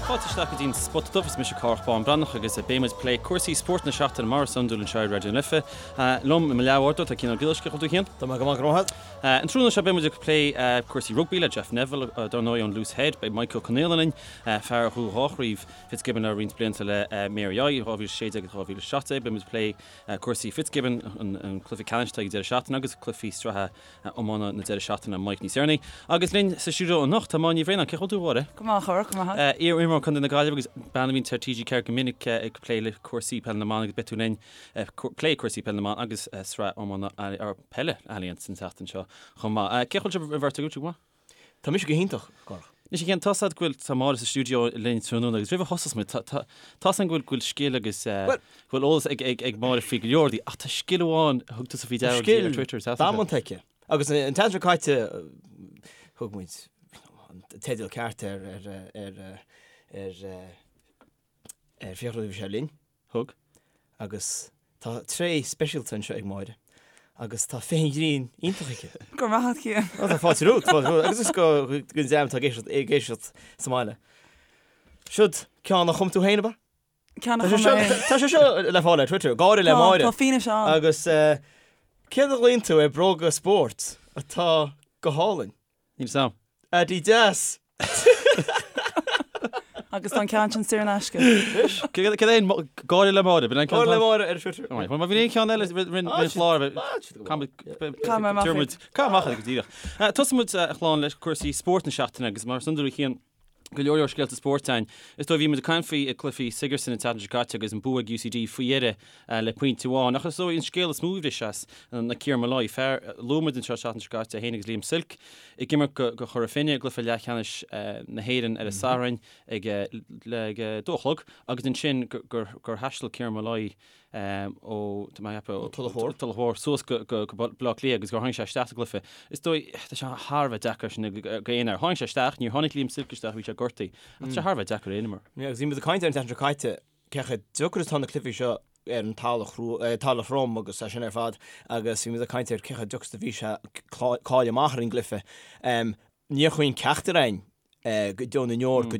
Fáilte isteach go dtí an Spota Dubh, is mise Cárthach Bán Breathnach agus beidh muid ag plé cúrsaí spóirt na seachtaine mar is iondúil anseo ar Raidió na Life. Liom i mo leathbhádóir tá Cian Ó Giollarsaigh, cén chaoi a bhfuil tú a Chian? Tá mé go maith, go raibh maith agat. An tráthnóna seo beidh muid ag plé cúrsaí rugbaí le Jeff Neville, dar ndóigh ón Loose Head. Beidh Michael Ó Conaola linn, fear a ghnóthaigh 2 chraobh Fitzgibbon le roinnt blianta le Mary I, 2016 agus 2017. Beidh muid ag plé cúrsaí Fitzgibbon, an cluiche ceannais atá ag an deireadh seachtaine agus cluichí sraithe iomána na deireadh seachtaine, Mike níos deireanaí. Agus linn sa stiúideo anocht tá Máire Ní Bhraonáin. Cén chaoi a bhfuil tú, a Mháire? Go maith, a Chárthaigh, go maith. Iar-imreoir Contae na Gaillimhe agus bean a bhíonn ar TG4 go minic ag plé le cúrsaí peile na mban agus beidh tú linn ag plé cúrsaí peile na mban agus sraith iomána peile Allianz an tseachtain seo chomh maith. Cén chaoi a bhfuil sibh an bheirt agaibh, go maith? Tá mise go hiontach, a Chárthaigh. Anois a Chian, tá's a'd go bhfuil, tá Máire sa stiúideo linn tráthnóna agus roimh a thosós muid, tá, tá, tá's a'm go bhfuil, go bhfuil scil agus eh, Bhuel, go bhfuil eolas ag, ag, ag Máire faoi go leor rudaí ach tá scil amháin a thug tusa faoi deara di ar Twitter, Scil damanta aici. Agus an tseachtain seo caite thug muid an teideal ceart ar, ar, ar, ar, ar Fiachra nuair a bhí sé linn. Thug. Agus tá tréith speisialta anseo ag Máire agus tá féith an ghrinn iontach aici. Go raibh maith agat, Cian. Ó, tá fáilte romhat, fáilte romhat. Agus is go don dream atá ag éisteacht, ag éisteacht sa mbaile. Siod ceann a chum tú féin, ab ea? Ceann a chum mé féin. Tá sé seo le fáil ar Twitter, gáire le Máire. Tá fianaise ann. Agus céard a ghlaonn tú ar bróga spóirt atá go hálainn? Níl 'fhios a'm. Adidas! Agus tá an ceann sin saor in aisce. Céard é an gáire le Máire? Gáire le Máire ar Twitter. Má bhíonn aon cheann eile roinn chlár Caith mé amach iad. Caith amach iad go díreach. Tosóidh muid a chlann le cúrsaí spóirt na seachtaine agus mar is iondúil a Chian go leor leor scéalta spóirt ann. Is dóigh bhí muid ag caint faoi cluichí Sigerson an tseachtain seo caite agus an bua ag UCD faoi dheireadh le pointe amháin. Ach is dóigh an scéal is mó a bhris as ná Kieran Molloy, fear a luaigh muid anseo an tseachtain seo caite, é féin agus Liam Silke ag imirt do Chora Finne i gcluiche leathcheannais na hÉireann ar an Satharn ag ag 2 a chlog agus ansin gur thaistil Kieran Molloy ó tá mé ag ceapadh Tulach Mhór. Tulach Mhór suas go go Baile Átha Cliath agus gur tháinig sé isteach sa gcluiche. Is dóigh tá sé thar a bheith deacair sin do aon fhear. Tháinig sé isteach, níor tháinig Liam Silke isteach, bhí sé gortaithe. Ach tá sé thar a bheith deacair aon imreoir. Agus bhí muid ag caint ar an tseachtain seo caite cé chomh deacair is atá na cluichí seo ar an talamh throm agus é sin ar fad agus bhí muid ag caint ar cé chomh deacair is a bhí sé cáil amach ar an gcluiche. Níor chuimhin ceachtar againn go deo na ndeor go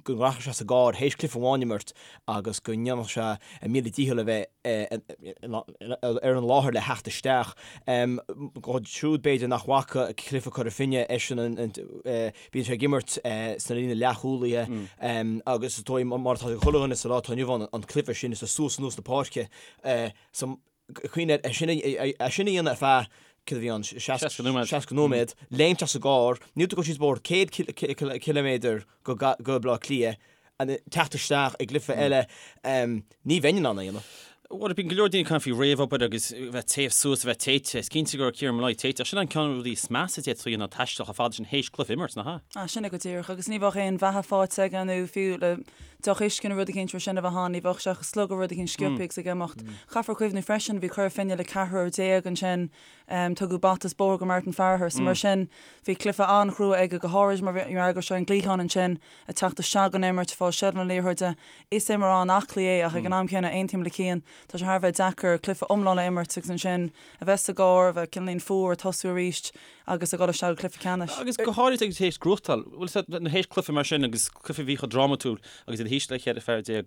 go rachadh sé sa gcarr théis cluiche amháin a imirt agus go ndéanfadh sé a mhíle dícheall a bheith ar an láthair le theacht isteach. Dóibh siúd b'fhéidir nach bhfaca cluiche Cora Finne eisean an Bíonn sé ag imirt sna líne leathchúlaithe agus is dóigh mar atá ag chuile dhuine sa lá atá inniu ann an cluiche sin is suas anuas na páirce so cuimhnigh air sin é sin a dhéanamh ar feadh céard a bhí ann 60 nóiméad 60 nóiméad léimt as an gcarr níl tú ag dul síos bóthar 100 ciliméadar go go Baile Átha Cliath teacht isteach i gcluiche eile ní bheinn in ann é a dhéanamh. Bhuel, bíonn go leor daoine ag caint faoi réamhobair agus bheith téamh suas, a bheith téite. Is cinnte go raibh Kieran Molloy téite, ach sin an ceann de na rudaí is measa a d'fhéadfá a dhéanamh ná taisteal chomh fada sin théis cluiche a imirt, nach ea? Ah, sin é go díreach. Agus ní bheadh aon bheatha faighte aige nó fiú le deoch uisce nó rud eicínt mar sin a bheith ann, ní bheadh sé ach ag slogadh rud eicínt sciobtha agus ag imeacht. Caithfear cuimhniú freisin, bhí Cora Finne le ceathrar déag ansin, tugadh bata is bóthar go Martin Farragher, so mar sin bhí cluiche an-chrua aige, go háirid mar go raibh sé ar an gcliathán ansin. ag teacht isteach don imirt, ag fáil seilbh na liathróide. Is imreoir an-aclaí é ach ag an am céanna, aontaím le Cian, tá sé thar a bheith deacair cluiche iomlán a imirt agus ansin a bheith sa gcarr, a bheith cineáilín fuar, tosú arís agus a dhul isteach go cluiche ceannais. Agus go háirid ag théis gnóthachtáil, bhfuil fhios agat, théis cluiche mar sin agus cluiche a bhí chomh drámatúil agus iad thíos le 14 fear,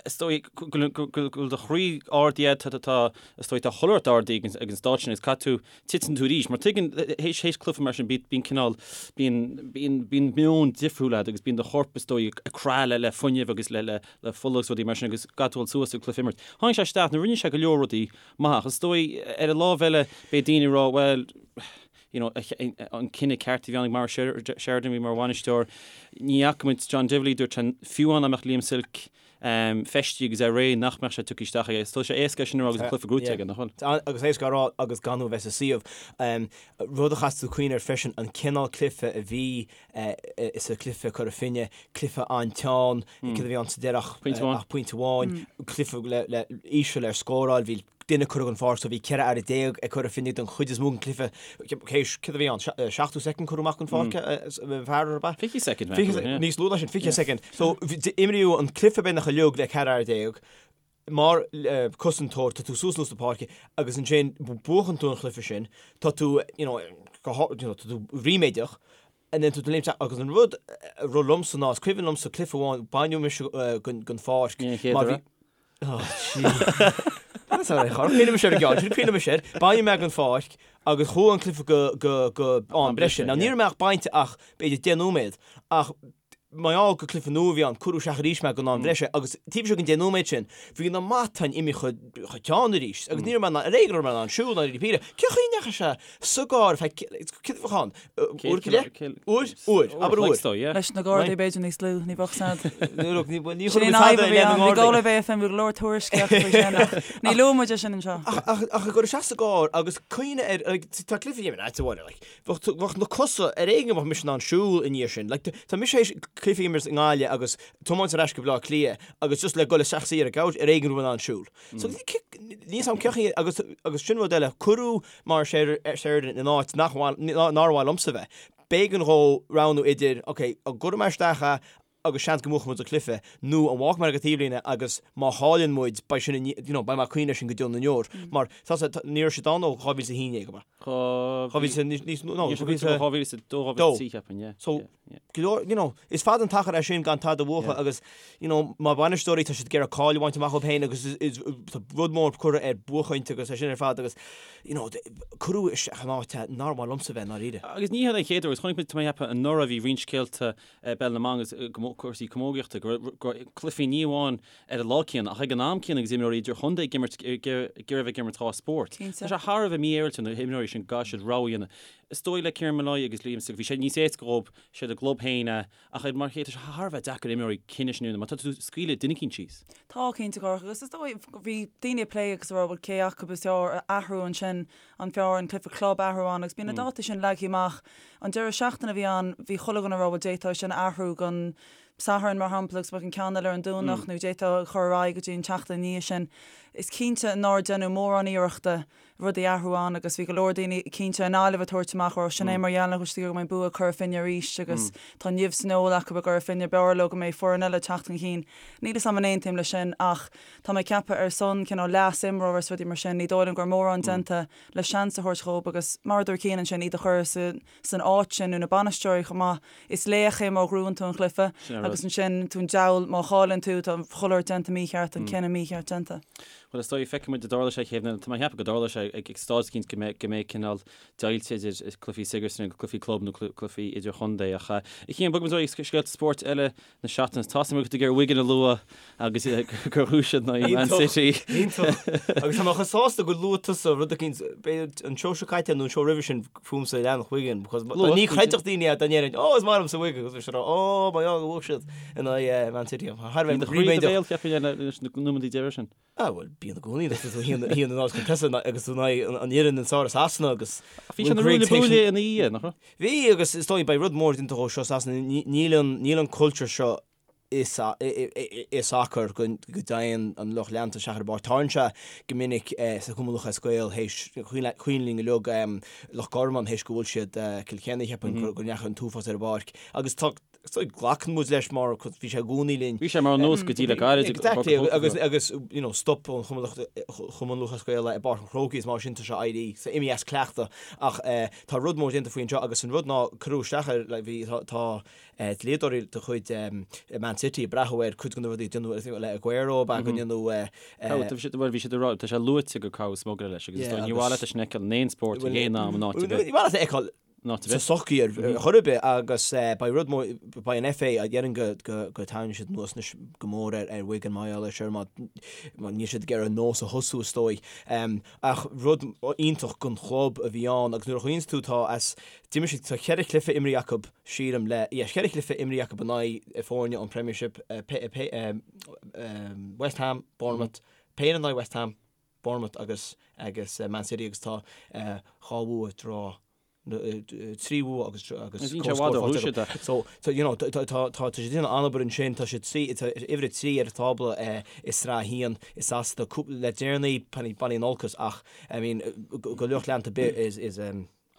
is dóigh go bhfuil do chroí ardaithe, tá, is dóigh, tá chuile shórt ardaithe ag an stáid sin agus caithfidh tú titeann tú arís. Mar tuigeann, théis, théis cluiche mar sin, bíonn cineál, bíonn, bíonn, bíonn meon difriúil agat agus bíonn do chorp, is dóigh, ag crá le, le fuinneamh agus le, le, le fola agus rudaí mar sin agus caithfidh tú dul suas ag cluiche a imirt. Tháinig sé isteach, nó rinne sé go leor rudaí maith ach is dóigh, ar an lámh eile, beidh daoine ag rá, bhuel, you know, an cinneadh ceart a bhí ann ag Maurice Sheridan, a bhí mar bhainisteoir. Ní fhaca muid John Divilly, dúirt sé, fiú amháin dá mbeadh Liam Silke feistithe agus é réidh nach mbeadh sé tugtha isteach aige. Tá sé éasca é sin a rá agus an cluiche gnóthaithe aige, nach bhfuil? Agus éasca a rá agus gan tú a bheith sa suíomh. Rud a chaithfidh tú cuimhneamh air freisin, an cineál cluiche a bhí sa chluiche Cora Finne, cluiche an-teann, céard a bhí ann sa deireadh ach pointe amháin, cluiche le íseal ar scóráil, bhí duine curtha den pháirc so bhí 14 fhear ag Cora Finne don chuid is mó den chluiche. Céard a bhí ann? 70 soicind curtha amach den pháirc fear ar bith? 20 soicind, Níos lú ná sin, 20 soicind. So imríodh an cluiche beagnach uilig le 14 fhear. Mar cosantóir tá tú suas anuas na páirce agus ansin buachann tú an chluiche sin, tá tú, you know, tá tú ríméadach. And then tú léimt agus an rud a rith liomsa ná is cuimhin liomsa cluiche amháin baineadh mise den pháirc Ní an chéad mar bhí uair. Oh gee. That's all right, char cuimhin mise ar an gceann sin, cuimhin mise air. Baineadh mé den pháirc agus chuaigh an cluiche go go go am breise. Now ní raibh mé ach bainte ach b'fhéidir 10 nóiméad ach mar gheall gur cluiche nua a bhí ann, cuireadh isteach arís mé don am bhreise agus taobh istigh den 10 nóiméad sin, bhí na matáin imithe chomh teann arís agus ní raibh mé in ann, ar éigean a raibh mé in ann siúl ná rudaí píre. Cén chaoi a ndeachaigh sé sa gcarr ar feadh, céard a bheadh ann? Uair go leith? Uair? Uair. Abair uair. Leis na Gardaí b'fhéidir níos lú, ní bheadh sad. Ní Sin chuirfidh an tada fhadhb a i bhí leith na ann, bhí nGardaí. Galway Bay FM, bhí go leor tuairiscíocht faoi sin ach ní luaigh muid é sin anseo. Ach ag cur isteach sa gcarr agus cuimhne ar, like, tá cluiche in áit amháin, like, Bheadh, bheadh na cosa ar éigean go mbeadh mise in ann siúl i ndiaidh sin. Like, tá mise théis cluiche a imirt i nGaillimh agus tiomáint ar ais go Baile Átha Cliath agus just le dul isteach suí ar an gcouch ar éigean go raibh mé in ann siúl. So, níl 'fhios a'm cén chaoi agus, agus sin rud eile, cuireadh Maurice Sheridan in áit nach mhaith, nár mhaith liomsa bheith. B'éigean dhó roghnú idir, ok, an gcuirfidh mé isteach é agus seans go mbuafaidh muid an cluiche, nó an bhfágfaidh mé ar an taobhlíne agus má chailleann muid, beidh sin, you know, beidh mé ag cuimhneamh air sin go deo na ndeor. Mar, tá sé, ní raibh siad ann ó 2011, ab ea? 2000, níos, no, 2002, 2003, cheapfainn, yeah. So, go leor, you know, is fada an t-achar é sin gan tada a bhuachan agus, you know, mar bhainisteoirí tá siad ag iarraidh cáil a bhaint amach dóibh féin agus is, tá rud mór curtha ar buachaint agus é sin ar fad agus, you know, cuireadh isteach in áit nár mhaith liomsa bheith i ndáiríre. Agus ní hé an chéad uair, agus chonaic muid, tá mé ag ceapadh, anuraidh bhí roinnt scéalta i bPeil na mBan agus cúrsaí camógaíochta, go raibh cluichí ní amháin ar an lá céanna ach ag an am céanna agus imreoirí idirchontae ag imirt, ag iarraidh a bheith ag imirt dhá spórt. Tá sé thar a bheith mífhéaráilte na himreoirí sin go gcaithfidh siad rogha a dhéanamh. Is dóigh le Kieran Molloy agus Liam Silke, bhí sé níos éasca dhóibh, siad a gclub féin é, ach ar mar chéile tá sé thar a bheith deacair imreoirí cinneadh sin a dhéanamh mar tá tú ag scaoileadh duine eicínt síos. Tá, cinnte, a Chárthaigh, agus is dóigh, bhí daoine ag plé agus ag rá bhuel cé acu is fearr a athrú ansin, an fearr an cluiche club a athrú ann agus bíonn na dátaí sin leagtha amach. An deireadh seachtaine a bhí ann, bhí chuile dhuine ag rá bhuel d'fhéadfá é sin a athrú don Satharn mar shampla agus bheadh an ceann eile ar an Domhnach nó d'fhéadfá a chur ar aghaidh go dtí an tseachtain ina dhiaidh sin. Is cinnte nár deineadh mórán iarrachta rudaí a athrú ann agus bhí go leor daoine cinnte i nGaillimh ag tabhairt amach go raibh sin é mar gheall nach bhfuil siad ag iarraidh go mbeidh bua ag Cora Finne arís agus tá nimh san fheoil acu i gCora Finne, b'fhearr leo go mbeidh foireann eile ag teacht chun cinn. Níl 'fhios a'm an aontaím leis sin ach Tá mé ag ceapadh ar son cineál leas imreoir is rudaí mar sin, ní dóigh liom go raibh mórán déanta le seans a thabhairt dhóibh agus mar a dúirt Cian ansin, iad a chur san áit sin nó na bainisteoirí chomh maith, is laoch é má ghnóthaíonn tú an chluiche agus ansin tú an diabhal má chailleann tú, tá chuile shórt déanta mícheart, an cinneadh mícheart déanta. Bhuel is dóigh, feicfidh muid an dtarlóidh sé chéad, tá mé ag ceapadh go dtarlóidh sé ag staid eicínt go mbeidh go mbeidh cineál deighilt idir cluichí Sigerson agus cluichí club nó cluichí idirchontae ach a Chian, bogfaidh muid ar aghaidh scéalta spóirt eile na seachtaine. Tá 'fhios agam go bhfuil tú ag iarraidh Wigan a lua agus gur bhuaigh siad in aghaidh Man City. Iontach. Agus tá mé chomh sásta gur luaigh tusa rud eicínt, b'fhéidir an seó seo caite nó an seó roimhe sin fúmsa a leanfadh Wigan because ní chreidfeadh daoine é dá ndéarfainn oh is maith liomsa Wigan agus bhí siad ag rá oh my God bhuaigh siad in aghaidh Man City. Thar a bheith Bhí do chroí i do bhéal cheapfainn leis na nóiméadaí deiridh sin. Ah bhuel bíonn i gcónaí agus tú thíos in áit chun tosaigh agus tú in aghaidh an fhoireann is fearr i Sasana agus Bhí sé na ruaille buaille ina dhiaidh, nach raibh? Bhí agus is dóigh beidh rud mór déanta dhó seo i Sasana níl an níl an cultúr seo i i sacar go go dtéann an lucht leanta isteach ar an bpáirc. Tarlaíonn sé go minic sa Chumann Lúthchleas Gael théis cuimhin linn uilig Loch Garman théis go bhfuair siad Kilkenny cheapfainn go ndeachaigh an t-uafás ar an bpáirc agus tá So glacann muid leis mar bhí sé i gcónaí linn. Bhí sé mar an nós go dtí le gairid. Exactly agus agus you know stop an Chumann Lúthchleas Gael i bPáirc an Chrócaigh is mar sin tá sé éirí so imithe as cleachtadh ach tá rud mór déanta faoi anseo agus an rud ná cuireadh isteach ar like bhí tá tá dlíodóirí de chuid Man City ag breathnú ar cuid de na rudaí a déanadh le Aguero ab ea go ndéanadh Bhuel bhí siad ag rá tá sé luaite gur caitheadh smugairle leis agus is dóigh ní mhaith leat é sin a fheiceáil in aon spórt ag aon am in áit ar bith. Ní maith leat a fheiceáil sa tsochaí ar chor ar bith agus beidh rud mór, beidh an FA, déarfainn go go dtarraingeoidh siad anuas anois go mór ar ar Wigan mar gheall air seo mar mar níl siad ag iarraidh an nós a thosú is dóigh. Ach rud iontach don chlub a bhí ann agus nuair a chuimhníonns tú tá as, d'imir siad, tá cheithre chluiche imrithe acu sílim le, yeah cheithre chluiche imrithe acu in aghaidh foirne ón Premiership, West Ham, Bournemouth, péire in aghaidh West Ham, Bournemouth agus agus Man City agus tá dhá bhua draw 3 bhua agus agus comhscór faighte acu. So so you know tá tá tá tá siad ag déanamh an-obair ansin tá siad trí tá uimhir a 3 ar an tábla i Sraith 1 i Sasana cúpla le deireanaí bainfidh an olcas ach I mean go lucht leanta ar bith is is.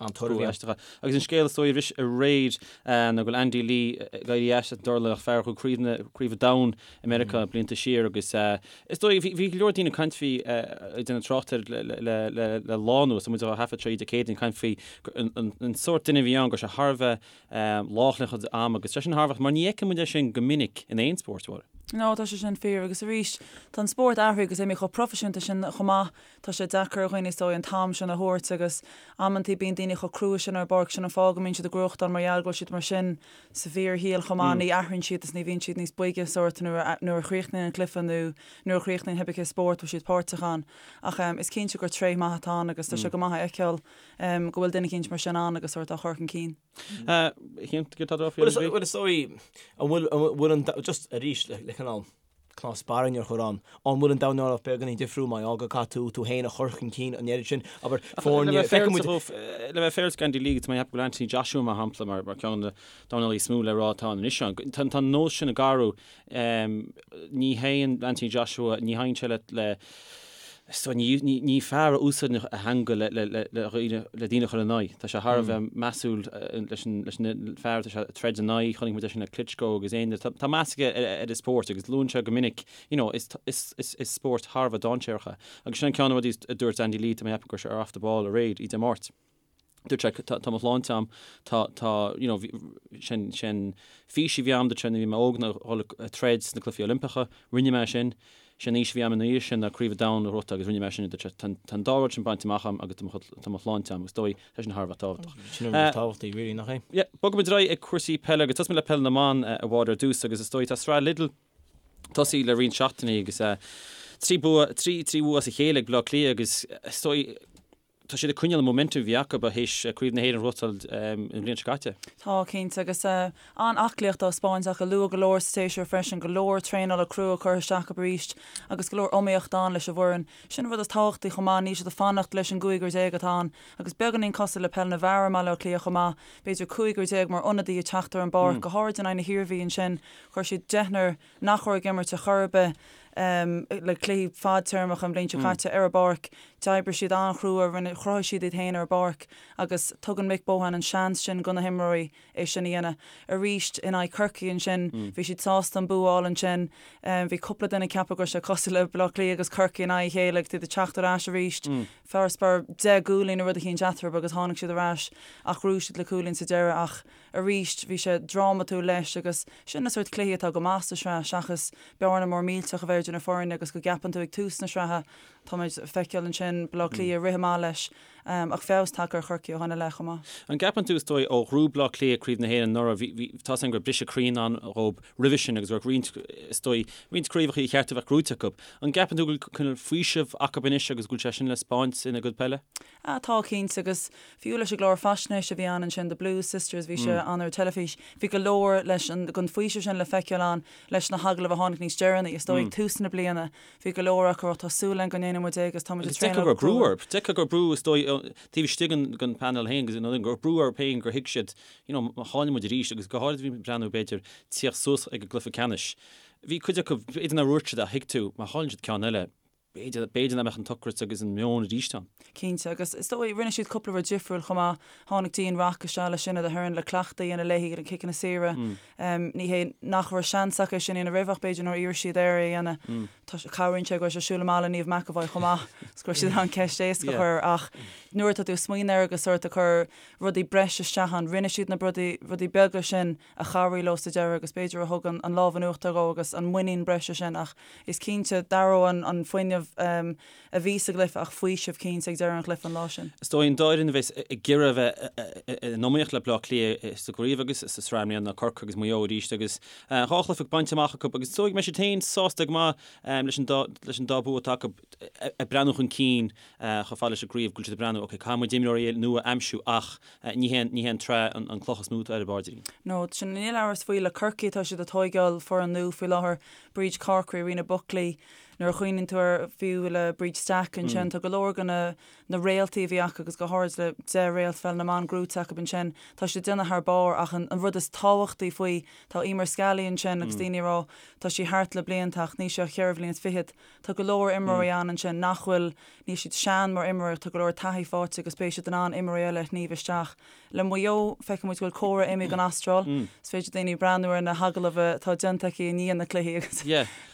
An-toradh a bhí ann. Agus an scéal is dóigh a bhris aréir ná go bhfuil Andy Lee ag éirí as an dornálaíocht, fear a ghnóthaigh craobh na craobh an domhain i Meiriceá blianta siar agus is dóigh bhí bhí go leor daoine ag caint faoi ag déanamh trácht air le le le le lá anuas, tá muid á thaifead seo Dé Céadaoin ag caint faoi an an sórt duine a bhí ann go raibh sé thar a bheith lách lena chuid ama agus sé sin thar a bheith mar ní fheiceann muid é sin go minic in aon spórt, a Mháire. No, tá sé sin fíor agus arís tá an spórt athraithe agus imithe chomh proifisiúnta sin chomh maith. Tá sé deacair ar dhaoine is dóigh an t-am sin a thabhairt agus amantaí bíonn daoine chomh crua sin ar an bpáirc, sin an fáth go mbíonn siad ag gnóthachtáil mar gheall go bhfuil siad mar sin sa bhfíorshaol chomh maith, ní athraíonn siad is ní bhíonn siad níos boige sórt nuair a nuair a chríochnaíonn an cluiche nó nuair a chríochnaíonn cibé cén spórt a bhfuil siad páirteach ann. Ach is cinnte gur tréith maith atá ann agus tá sé go maith a fheiceáil go bhfuil duine eicínt mar sin ann agus sórt á chur chun cinn. Cinnte go tá Bhuel is dóigh an bhfuil an bhfuil an just arís le cineál cnámh spairne a chur ann. An bhfuil an dornálaíocht beagáinín difriúil mar gheall go gcaithfidh tú tú féin a chur chun cinn an oiread sin? Abair, foirne, feicfidh muid. Le bheith féaráilte d'Andy Lee, tá mé ag ceapadh go bhfuil Anthony Joshua mar shampla mar mar ceann de na dornálaithe is mó le rá atá ann anois. Tá an nós sin ag athrú. Ní théann Anthony Joshua, ní théann sé le le So ní ní fear a úsáideann a theanga le le le le dhaoine le daoine a chur ina aghaidh. Tá sé thar a bheith measúil leis an leis an fear atá sé ag troid ina aghaidh. Chonaic muid é sin le Klitschko agus éinne. Tá tá meas aige ar ar an spórt agus luann sé go minic you know is is is is spórt thar a bheith dainséarach é. Agus sin an ceann de na rudaí a dúirt Andy Lee, tá mé ag ceapadh go raibh sé ar Off the Ball aréir, oíche Dé Máirt. Dúirt sé, tá, tá mo shláinte a'm, tá, tá, you know, bhí, sin, sin fís a bhí a'm, dúirt sé, nuair a bhí mé óg ná dhul ag troid sna Cluichí Oilimpeacha, rinne mé sin, sé an fhís a bhí a'm ina dhiaidh sin ná Craobh an Domhain a ghnóthachtáil agus rinne mé sin, dúirt sé, tá, tá an dá rud sin bainte amach a'm agus tá mo, tá mo shláinte a'm agus is dóigh, tá sin thar a bheith tábhachtach. Sin an rud is tábhachtaí, really, nach é? Yeah, bogfaidh muid ar aghaidh ag cúrsaí peile agus tosóidh muid le peil na mban, a Mháire, ar dtús agus is dóigh tá sraith Lidl tosaithe le roinnt seachtainí agus 3 bua, 3, 3 bhua as a chéile ag Baile Átha Cliath agus is dóigh, Tá siad ag coinneáil an momentum a bhí acu théis Craobh na hÉireann a ghnóthachtáil an bhliain seo caite. Tá, cinnte, agus an-aclaíocht á spáint acu luath go leor sa tséasúr freisin, go leor traenála crua curtha isteach acu arís agus go leor iomaíocht ann leis an bhfoireann. Sin an rud is tábhachtaí chomh maith, níl siad ag fanacht leis an gcúigear déag atá ann agus beagáinín cosúil le peil na bhfear i mBaile Átha Cliath chomh maith, b'fhéidir cúigear déag mar ionadaí ag teacht ar an bpáirc, go háirid in aghaidh na hIarmhí ansin, chuir siad deichniúr nach raibh ag imirt ar chor ar bith le cluichí fadtéarmacha an bhliain seo caite ar an bpáirc. D'oibrigh siad an-chrua, rinne, chruthaigh siad iad féin ar an bpáirc agus tugann Mick Bohan an seans sin do na himreoirí é sin a dhéanamh. Arís in aghaidh Chorcaí ansin, bhí siad sásta an bua a fháil ansin. Bhí cúpla duine ag ceapadh go raibh sé cosúil le Baile Átha Cliath agus Corcaigh in aghaidh a chéile agus iad ag teacht ar ais arís. Farasbarr 10 gcúilín nó rud eicínt eatarthu agus tháinig siad ar ais ach ghnóthaigh siad le cúilín sa deireadh ach Arís, bhí sé drámatúil leis agus sin na sórt cluichí atá go maith sa sraith seachas bearna mór millteach a bheith idir na foirne agus go gceapann tú ag tús na sraithe, táimid ag feiceáil ansin Baile Átha Cliath ag rith amach leis ach feabhas tagtha ar Chorcaigh ó shin i leith chomh maith. An gceapann tú, is dóigh, ó ghnóthaigh Baile Átha Cliath Craobh na hÉireann anuraidh, bhí, bhí, tá's againn go raibh briseadh croí i ndán dhóibh roimhe sin agus go raibh roinnt, is dóigh, roinnt craobhacha ar cheart a bheith gnóite acu. An gceapann tú go bhfuil cineál faoiseamh acu anois agus go bhfuil sé sin le spáint ina gcuid peile? Ah, tá, cinnte, agus fiú leis an gclár faisnéise a bhí ann ansin, The Blues Sisters, bhí sé ann ar an teilifís, bhí go leor leis an, den faoiseamh sin le feiceáil ann leis na hagallaimh a tháinig níos deireanaí, is dóigh, ag tús na bliana, bhí go leor acu ag rá, tá súil againn go ndéanfaidh muid é agus tá muid ag Agus d'fheicfeá traenáil go raibh brú orthu, d'fheicfeá go raibh brú, is dóigh, taobh istigh den, den panel féin agus go raibh brú orthu féin gur thuig siad, you know, má chailleann muid arís agus go háirid bhí muid ag breathnú, b'fhéidir, tíocht suas ag an gcluiche ceannais, bhí cuid acu, b'fhéidir nár dhúirt siad ach thuig tú, má chailleann siad ceann eile, B'fhéidir, b'fhéidir nach mbeadh an t-ocras agus an meon arís ann. Cinnte, agus is dóigh, rinne siad cúpla rud difriúil chomh maith. Tháinig Dean Rock isteach le Sinéad Aherne le cleachtadh a dhéanamh léi ar na ciceanna saora. Ní hé nach raibh seans acu é sin a dhéanamh roimhe ach b'fhéidir nár iarr siad air é a dhéanamh. Tá, cabhraíonn sé go raibh sé ag siúl amach le Niamh McEvoy chomh maith is go raibh siad in ann ceist éasca a chur ach nuair atá tú ag smaoineamh air agus sórt ag cur rudaí breise isteach ann, rinne siad na rudaí, rudaí beaga sin a chabhraigh leo sa deireadh agus b'fhéidir a thug an lámh in uachtar dhó agus an muinín breise sin ach is cinnte d'athródh an fuinneamh a bhí sa gcluiche ach faoiseamh cinnte ag deireadh an chluiche an lá sin. Is dóigh an dá fhoireann a bheas ag iarraidh a bheith in iomaíocht le Baile Átha Cliath sa gcraobh agus sa sraith i mbliana ná Corcaigh agus Maigh Eo arís agus dhá chluiche bainte amach acu agus is dóigh go mbeidh siad féin sásta go maith leis an dá leis an dá bua atá acu ag breathnú chun cinn chomh fada leis an gcraobh go bhfuil siad ag breathnú ok caithfidh muid imreoirí nua a aimsiú ach Ní hé ní hé an tsraith an cloch is mó atá ar a bpaidrín. No, sin níl amhras faoi. Le Corcaigh tá siad ag tóigeáil foireann nua faoi láthair, Bríd Corkery, Ríona Buckley. Nuair a chuimhníonn tú ar fiú le Bríd Stack ansin, tá go leor de na na réaltaí a bhí acu agus go háirid le 10 réalt pheil na mban gnóite acu ansin, tá siad ag déanamh thar barr ach an rud is tábhachtaí faoi, tá Eimear Scally ansin agus daoine ag rá tá sí thart le blianta ach níl sí ach cheithre bhliain is fichead. Tá go leor imreoirí ann ansin nach bhfuil, níl siad sean mar imreoirí ach tá go leor taithí faighte agus beidh siad in ann imreoirí eile a shníomh isteach. Le Maigh Eo, feiceann muid go bhfuil Cora imithe don Astráil. Is féidir daoine breathnú ar na hagallaimh atá déanta aici i ndiaidh na cluichí agus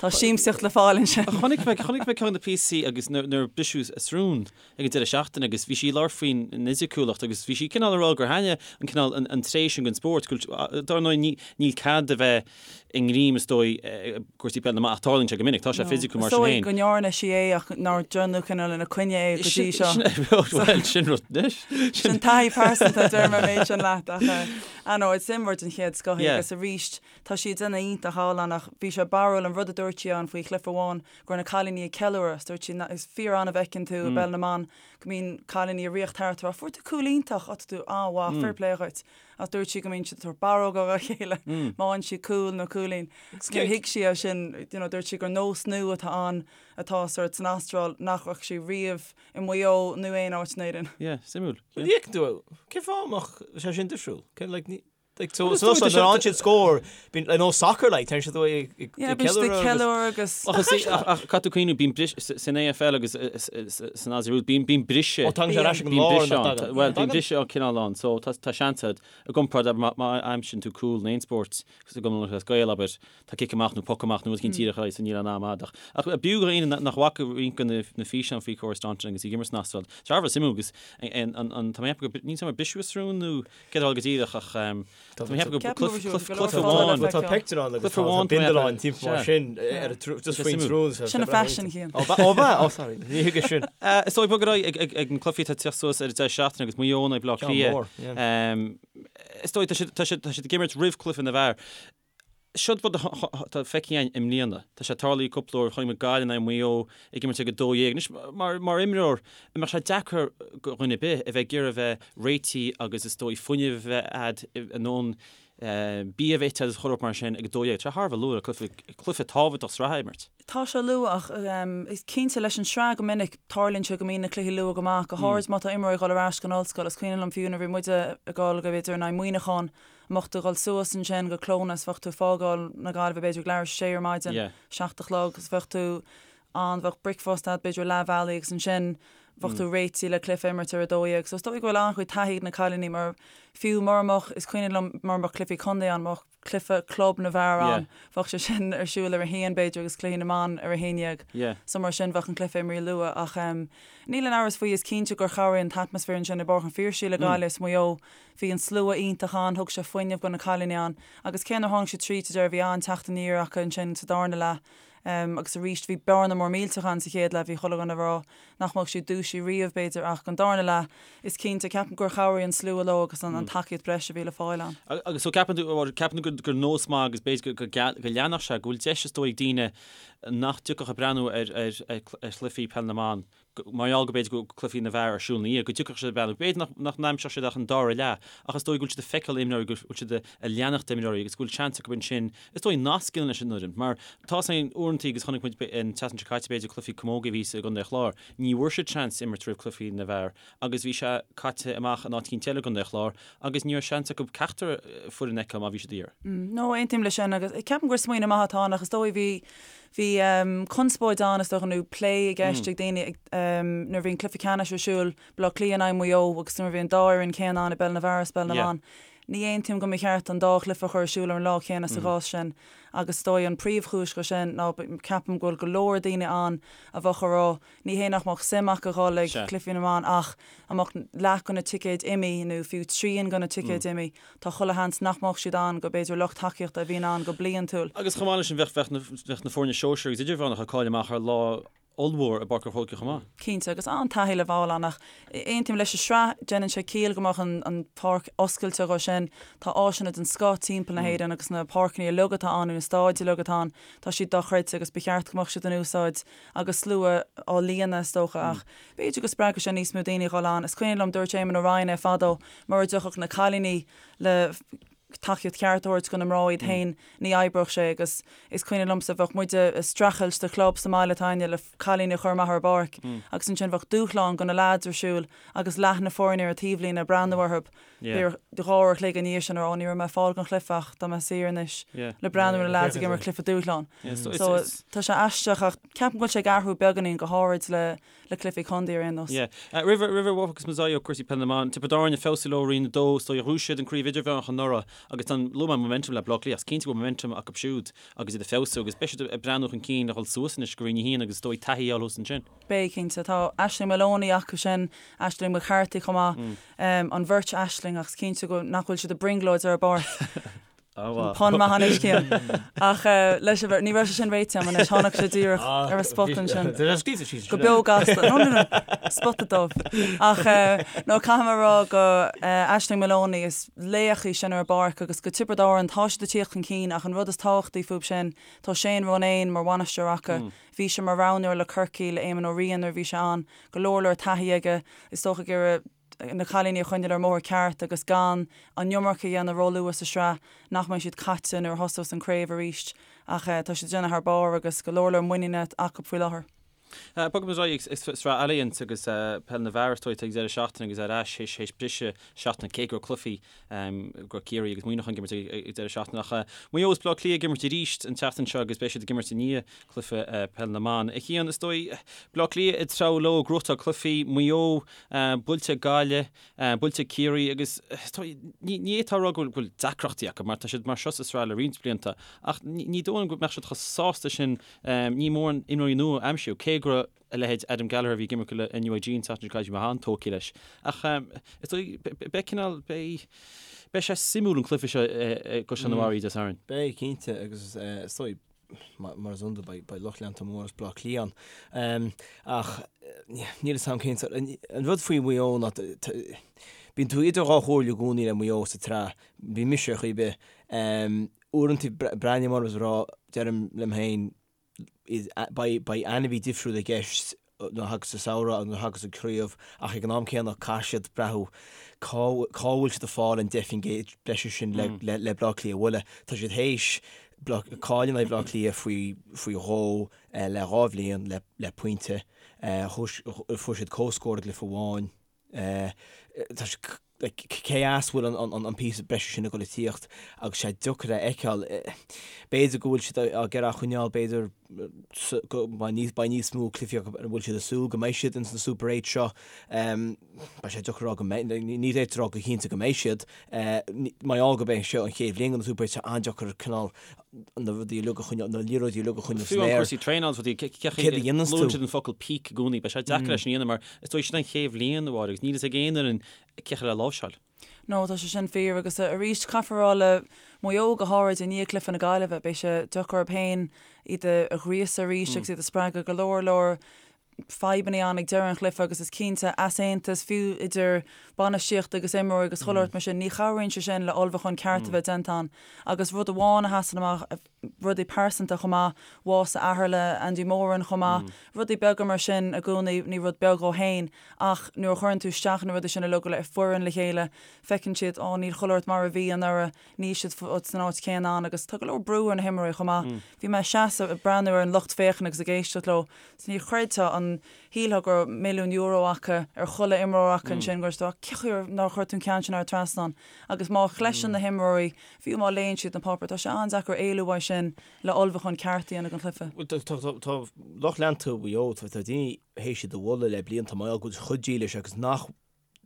tá siamsaíocht le fáil ansin. Chonaic mé chonaic mé ceann de na píosaí agus nuair a briseadh a srón ag an deireadh seachtaine agus bhí sí ag labhairt faoin fhisiciúlacht agus bhí sí cineál ag rá gur thaitnigh an cineál an tréith sin den spórt go bhfuil dar ndóigh níl cead a bheith i ngreim is dóigh i gcúrsaí peile na mban ach tarlaíonn sé go minic, tá sé fisiciúil mar sin féin. Is dóigh go ndearna sí é ach nár déanadh cineál ina coinne é go dtí seo. Bhuel, sin rud anois. Sin taithí pearsanta, deirim an méid sin leat ach ah no, is imreoir den chéad scoth í agus arís tá sí ag déanamh iontach thall ann ach bhí sé barrúil an rud a dúirt sí ann faoi chluiche amháin go raibh na cailíní ag ceiliúradh is dúirt sí is fíor-annamh a fheiceann tú i bpeil na mban go mbíonn cailíní ag ritheacht thart ag rá fuair tú cúl iontach, á tá tú an-mhaith, fair play dhuit. Ach dúirt sí go mbíonn siad ag tabhairt barróga dá chéile má fhaigheann siad cúl nó cúilín. Níor thuig sí é sin, you know, dúirt sí gur nós nua atá ann atá sort san Astráil nach raibh sí riamh i Maigh Eo nó aon áit in Éirinn. Yeah, suimiúil. Well, yeah, do, cén fáth a mbeadh sé sin difriúil? Cén, like, ní, like, so, so, so, nuair a fhaigheann siad scór, bíonn, like, nó soccer, like, téann siad ag, ag, Yeah, bíonn siad ag ceiliúradh agus. Ach, is, ach, ach, caithfidh tú cuimhneamh, bíonn bris, san AFL agus san Aussie Rules, bíonn, bíonn briseadh. Ó, tagann sé ar ais ag an lár, nach dtagann? Bhuel, bíonn briseadh an cineál ann, so tá, tá seans agat, i gcomparáid, abair, má, má aimsíonn tú cúl in aon spórt, i gCumann Lúthchleas Gael, abair, tá cic amach nó poc amach nó rud eicínt díreach ar aghaidh, so níl aon am a'd. Ach, ach b'fhiú do dhaoine nach bhfaca roinnt de na, na físeáin faoi Cora Staunton agus í ag imirt san Astráil, tá sé thar a bheith suimiúil agus an, an, an, tá mé ag ceapadh go, níl 's agam ar briseadh a srón nó céard a tharla go díreach ach tá mé ag ceapadh go cluiche amháin. Tá pictiúr ann agus tá bindealán timpeall mar sin ar just faoin tsrón. Sin a faisean Cian. Ó ba ó sorry ní thuigim sin. Is dóigh bog ar aghaidh ag na cluichí atá ag teacht suas ar an deireadh seachtaine agus Maigh Eo in aghaidh Bleá Cliath. Is dóigh tá siad ag imirt roimh cluiche na bhfear. Seo rud atá feicthe againn i mbliana. Tá sé tarlaithe cúpla uair, chonaic muid Gaillimh in aghaidh Mhaigh Eo ag imirt ag 12. Anois, mar, mar imreoir, an mbeadh sé deacair do dhuine ar bith a bheith ag iarraidh a bheith réitithe agus is dóigh fuinneamh a bheith a'd a ndóthain bia a bheith ite agus chuile shórt mar sin ag 12. Tá sé thar a bheith luath le cluiche, cluiche tábhachtach sraithe a imirt. Tá sé luath ach is cinnte leis an sraith go minic tarlaíonn sé go mbíonn na cluichí luath go maith, go háirid má tá imreoirí ag dul ar ais go an ollscoil. Is cuimhin liom fiú nuair a bhí muide ag dul go b'fhéidir in aghaidh Muineachán, mbeadh tú ag dul suas ansin go Clones, bheadh tú ag fágáil na Gaillimhe b'fhéidir ag leathuair tar éis a sé ar maidin, 7 a chlog, agus bheadh tú ann, bheadh bricfeasta agat b'fhéidir leath bhealaigh agus ansin bheadh tú réitithe le cluiche a imirt ar 12. So is dóigh go bhfuil an-chuid taithí ag na cailíní mar fiú mura mbeadh, is cuimhin liom mura mbeadh cluichí contae ann, mbeadh cluiche club na bhfear ann, bheadh sé sin ar siúl ar a haon b'fhéidir agus cluichí na mban ar a 11. So mar sin bheadh an cluiche imeartha luath ach níl aon amhras faoi, is cinnte gur chabhraigh an t-atmaisféar ansin i bPáirc an Phiarsaigh le Gaillimh is Maigh Eo. Bhí an slua iontach ann, thug sé fuinneamh do na cailíní ann agus cé nár tháinig siad tríd sa deireadh bhí an-teacht aniar acu ansin sa darna leath agus arís bhí bearna mór millteach ann sa chéad leath, bhí chuile dhuine ag rá nach mbeadh siad dúisithe riamh b'fhéidir ach an darna leath is cinnte, ceapaim gur chabhraigh an slua leo agus an tacaíocht breise a bhí le fáil ann. Agus so ceapann tú, ceapann tú gur nós maith agus b'fhéidir go leanfadh sé, go bhfuil deis is dóigh ag daoine nach dtiocfadh ag breathnú ar chluichí peil na mban mar gheall go b'fhéidir go bhfuil cluichí na bhfear ar siúl ina dhiaidh, go dtiocfadh siad ag breathnú, b'fhéidir nach n-aimseodh siad ach an dara leath, ach is dóigh go bhfuil siad ag feiceáil imreoirí, go bhfuil siad ag leanacht imreoirí agus go bhfuil seans acu ansin, is dóigh, nasc a dhéanamh leis an bhfoireann. Mar tá a fhios againn uaireanta agus chonaic muid an tseachtain seo caite b'fhéidir cluichí camógaí a bhí i gContae an Chláir, ní bhfuair siad seans imirt roimh cluichí na bhfear agus bhí sé caite amach in áit eicínt eile i gContae an Chláir agus ní raibh seans acu ceachtar foireann a fheiceáil má bhí siad ag iarraidh. No, aontaím leis sin agus ceapaim gur smaoineamh maith atá ann ach is dóigh bhí Bhí conspóid ann, is dócha, nó plé i gceist ag daoine nuair a bhí an cluiche ceannais ar siúl, Baile Átha Cliath in aghaidh Mhaigh Eo agus nuair a bhí an dá fhoireann céanna ann i bpeil na bhfear is peil na mban. Ní aontaím go mba cheart an dá chluiche a chur ar siúl ar an lá céanna sa chás sin agus is dóigh an príomhchúis dho sin ná ceapaim go bhfuil go leor daoine ann a bheadh ag rá Ní hé nach mbeadh suim acu dhul ag cluichí na mban ach dá mbeadh leath de na ticéid imithe nó fiú trian de na ticéid imithe, tá chuile sheans nach mbeadh siad ann go b'fhéidir lucht tacaíochta a bhíonn ann go bliantúil. Agus chomh maith leis sin bheadh bheadh na foirne sóisir agus idirmheánach ag cailleadh amach ar lá ollmhór i bPáirc an Chrócaigh chomh maith. Cinnte, agus an-taithí le fáil ann ach aontaím leis an sraith, déanann sé ciall go mbeadh an pháirc oscailte dho sin. Tá áiseanna den scoth timpeall na hÉireann agus na páirceanna uilig atá ann nó na stáid uilig atá ann, tá siad dochreidte agus ba cheart go mbeadh siad in úsáid agus slua á líonadh is dócha ach b'fhéidir go spreagfadh sé níos mó daoine a dhul ann. Is cuimhin liom, dúirt Éamon Ó Ryan é fadó, mura dtiocfadh na cailíní le Tacaíocht cheart a thabhairt do na mná iad féin, ní oibreodh sé agus is cuimhin liomsa bheadh muide ag streachailt do chlub sa mbaile atá againne le cailíní a chur amach ar an bpáirc agus ansin bheadh dúshlán do na leaids ar siúl agus leath na foirne ar an taobhlíne ag breathnú orthu b'fhéidir 2 uair a chloig ina dhiaidh sin ag rá ní raibh mé ag fáil don chluiche ach tá mé saor anois le breathnú ar na leaids ag imirt cluiche dúshlán. So tá sé aisteach ach ceapaim go bhfuil sé ag athrú beagáinín go háirid le le cluichí contae ar aon nós. Yeah. Roimh roimh a bhfágfas muid ó cúrsaí peile na mban, Tiobraid Árann ag feabhsú leo Roinn 2, is dóigh ghnóthaigh siad an craobh idirmheánach anuraidh agus tá an luaigh mé momentum le Bleá Cliath, is cinnte go bhfuil momentum acu siúd agus iad ag feabhsú agus beidh siad ag breathnú chun cinn le dhul suas anois go Roinn 1 agus is dóigh taithí a fháil thuas ansin. Beidh, cinnte. Tá Aisling Moloney acu sin, Aisling McCarthy chomh maith, an bheirt Aisling ach is cinnte go nach bhfuil siad ag brionglóid ar an bpáirc. Pun maith anois Cian. Ach leis an bheirt, ní raibh sé sin réitithe agam anois, tháinig sé díreach ar an spot ansin. Go beo gasta. No, no, no. Spota dubh. Ach no, caithfidh mé a rá go Aisling Moloney, is laoch í sin ar an bpáirc agus go Tiobraid Árann, tá siad ag tíocht chun cinn ach an rud is tábhachtaí fúb sin, tá Shane Ronayne mar bhainisteoir acu. Bhí sé mar roghnóir le Corcaigh, le Éamon Ó Riain nuair a bhí sé ann. Go leor leor taithí aige. Is dócha ag iarraidh na cailíní a choinneáil ar an mbóthar ceart agus gan an iomarca a dhéanamh róluath sa sraith, nach mbeidh siad caite nuair a thosós an craobh arís. Ach tá siad ag déanamh thar barr agus go leor leor muiníne acu faoi láthair. Bogfaidh muid ar aghaidh ag sraith Allianz agus peil na bhfear is dóigh ag deireadh seachtaine agus ar ais théis briseadh seachtaine cé go raibh cluichí go raibh Ciarraí agus Muineachán ag imirt ag deireadh seachtaine ach Maigh Eo is Bleá Cliath ag imirt arís an tseachtain seo agus beidh siad ag imirt i ndiaidh cluiche peil na mban. A Chian, is dóigh Bleá Cliath ag treabhadh leo ag gnóthachtáil cluichí, Maigh Eo buailte ag Gaillimh, buailte ag Ciarraí agus ní fhéadfá a rá go bhfuil deacrachtaí acu mar tá siad mar seo sa sraith le roinnt blianta ach ní dóigh liom go mbeadh siad chomh sásta sin ní mórán imreoirí nua a aimsiú cé go raibh a leithéid Adam Gallagher a bhí ag imirt le NUIG an tseachtain seo caite bhí mé an-tógtha leis ach is dóigh beidh cineál beidh beidh sé suimiúil an cluiche seo i gCaisleán an Bharraigh Dé Sathairn. Beidh cinnte agus is dóigh mar is iondúil beidh lucht leanta mór as Bleá Cliath ann. Ach níl fhios a'm cén sórt, an rud faoi Mhaigh Eo ná bíonn tú idir dhá chomhairle i gcónaí le Maigh Eo sa tsraith, bíonn mise ar chaoi ar bith. Uaireanta breathnaím orthu is a rá, deirim liom féin, beidh ainmhí difriúil i gceist nuair a thagas an samhradh agus nuair a thagas an craobh ach ag an am céanna caithfidh siad breathnú cá bhfuil siad ag fáil an 10% breise sin le le Bleá Cliath a bhualadh. Tá siad théis cailleadh in aghaidh Bhleá Cliath faoi faoi dhó le dhá bhliain le le pointe. Fuair siad comhscór i gcluiche amháin. Tá siad cé as a bhfuil an píosa breise sin ag dul ag tíocht agus sé deacair a fheiceáil. B'fhéidir go bhfuil siad á iarraidh a choinneáil, b'fhéidir go mbeidh níos mó cluichí acu ar a bhfuil siad ag súil go mbeidh siad ins na Super 8 seo. Beidh sé deacair a rá go mbeidh, ní fhéadfá a rá go cinnte go mbeidh siad. Mar gheall gurb é seo an chéad bhliain de na Super 8, tá sé an-deacair cineál na rudaí uilig a choinneáil, na liathróidí uilig a choinneáil san aer. Fiú an cúrsaí traenála is rudaí, céard a dhéananns tú? Luann siad an focal peak i gcónaí, beidh sé deacair é sin a dhéanamh mar is dóigh sin an chéad bhliain a Mháire agus níl fhios ag aon fhoireann cé le láimhseáil. No, tá sé sin fíor agus arís caithfear a rá le Maigh Eo go háirid i ndiaidh cluiche na Gaillimhe, beidh sé deacair orthu féin iad a ghríosadh arís agus iad a spreagadh go leor leor fadhbanna ann ag deireadh an chluiche agus is cinnte easaontas fiú idir bainistíocht agus imreoirí agus chuile shórt mar sin, ní chabhraíonn sé sin le ullmhúchán ceart a bheith déanta ann agus rud amháin a sheasann amach, rudaí pearsanta chomh maith, bás a athar le Andy Moran chomh maith, rudaí beaga mar sin i gcónaí, ní rud beag dhó féin ach nuair a chuireann tú isteach na rudaí sin uilig le foireann le chéile, feiceann siad, á níl chuile shórt mar a bhí anuraidh, níl siad san áit chéanna ann agus tá go leor brú ar na himreoirí chomh maith. Bhí mé ag seasamh ag breathnú ar an lucht féachana agus ag éisteacht leo, ní chreidfeá an shílfeá go raibh milliún euro acu ar chuile imreoir acu ansin, go raibh siad, cén chaoi nár chuir tú an ceann sin thar an trasnán agus má chloiseann na himreoirí Fiú má léann siad na páipéir, tá sé an-deacair éalú uaidh sin le ullmhúchán ceart a dhéanamh don chluiche. Bhuel, tá lucht leanta Mhaigh Eo, tá daoine théis iad a mholadh le blianta mar gheall go bhfuil siad chomh dílis agus nach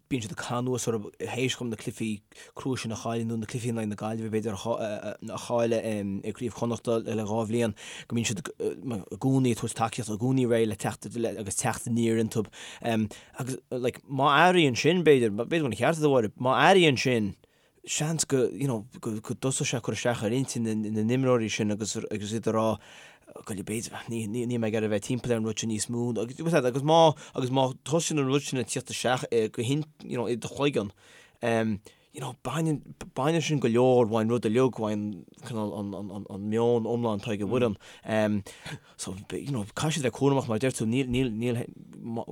bíonn siad ag caitheamh anuas orthu théis dóibh na cluichí crua sin a chailleadh nó na cluichí in aghaidh na Gaillimhe b'fhéidir a chailleadh i gCraobh Chonnachta le dhá bhliain, go mbíonn siad i gcónaí ag tabhairt tacaíochta, i gcónaí réidh le teacht agus teacht aniar iontu. Agus like má athraíonn sin b'fhéidir, b'fhéidir go bhfuil an ceart agat a Mháire, má athraíonn sin, seans go, you know, go dtosóidh sé ag cur isteach ar intinn na n-imreoirí sin agus agus iad ag rá go b'fhéidir, ní, ní, níl mé ag iarraidh a bheith timpeall ar an rud sin níos mó agus, agus má, agus má thosaíonn an rud sin ag tíocht isteach go hin, you know, i do chloigeann, um, you know, baineann, baineann sin go leor uaidh an rud uilig, uaidh an, cineál, an, an, an, an meon iomlán atá ag an bhfoireann. Um, so, you know, caithfidh siad a bheith cúramach mar a deir tú, níl, níl, níl,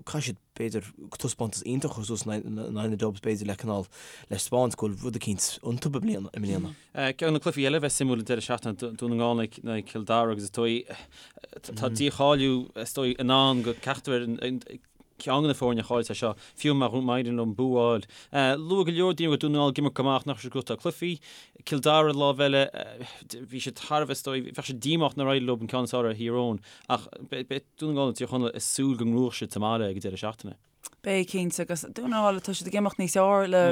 caithfidh siad, b'fhéidir, taispeántas iontach a chur suas in aghaidh na Dubs, b'fhéidir, le cineál, le 'spáint go bhfuil rud eicínt iontu i mbliana, i mbliana. Ceann de na cluichí eile a bheas suimiúil an deireadh seachtaine, Dún na nGall in aghaidh Chill Dara agus is dóigh, tá dícháiliú, is dóigh, i ndán do ceachtar ceann de na foirne a chaillfeas é seo, fiú má éiríonn leo bua a fháil. Luaigh go leor daoine go raibh Dún na nGall ag imirt go maith ach nach raibh siad ag gnóthachtáil cluichí. Cill Dara ar an lámh eile, bhí siad thar a bheith, is dóigh, bheadh siad díomách nár éirigh leo an ceann is fearr ar Thír Eoghain ach beidh Dún na nGall agus Tír Chonaill ag súil go ngnóthóidh siad sa mbaile ag an deireadh seachtaine. Beidh, cinnte, agus Dún na nGall, tá siad ag imeacht níos fearr le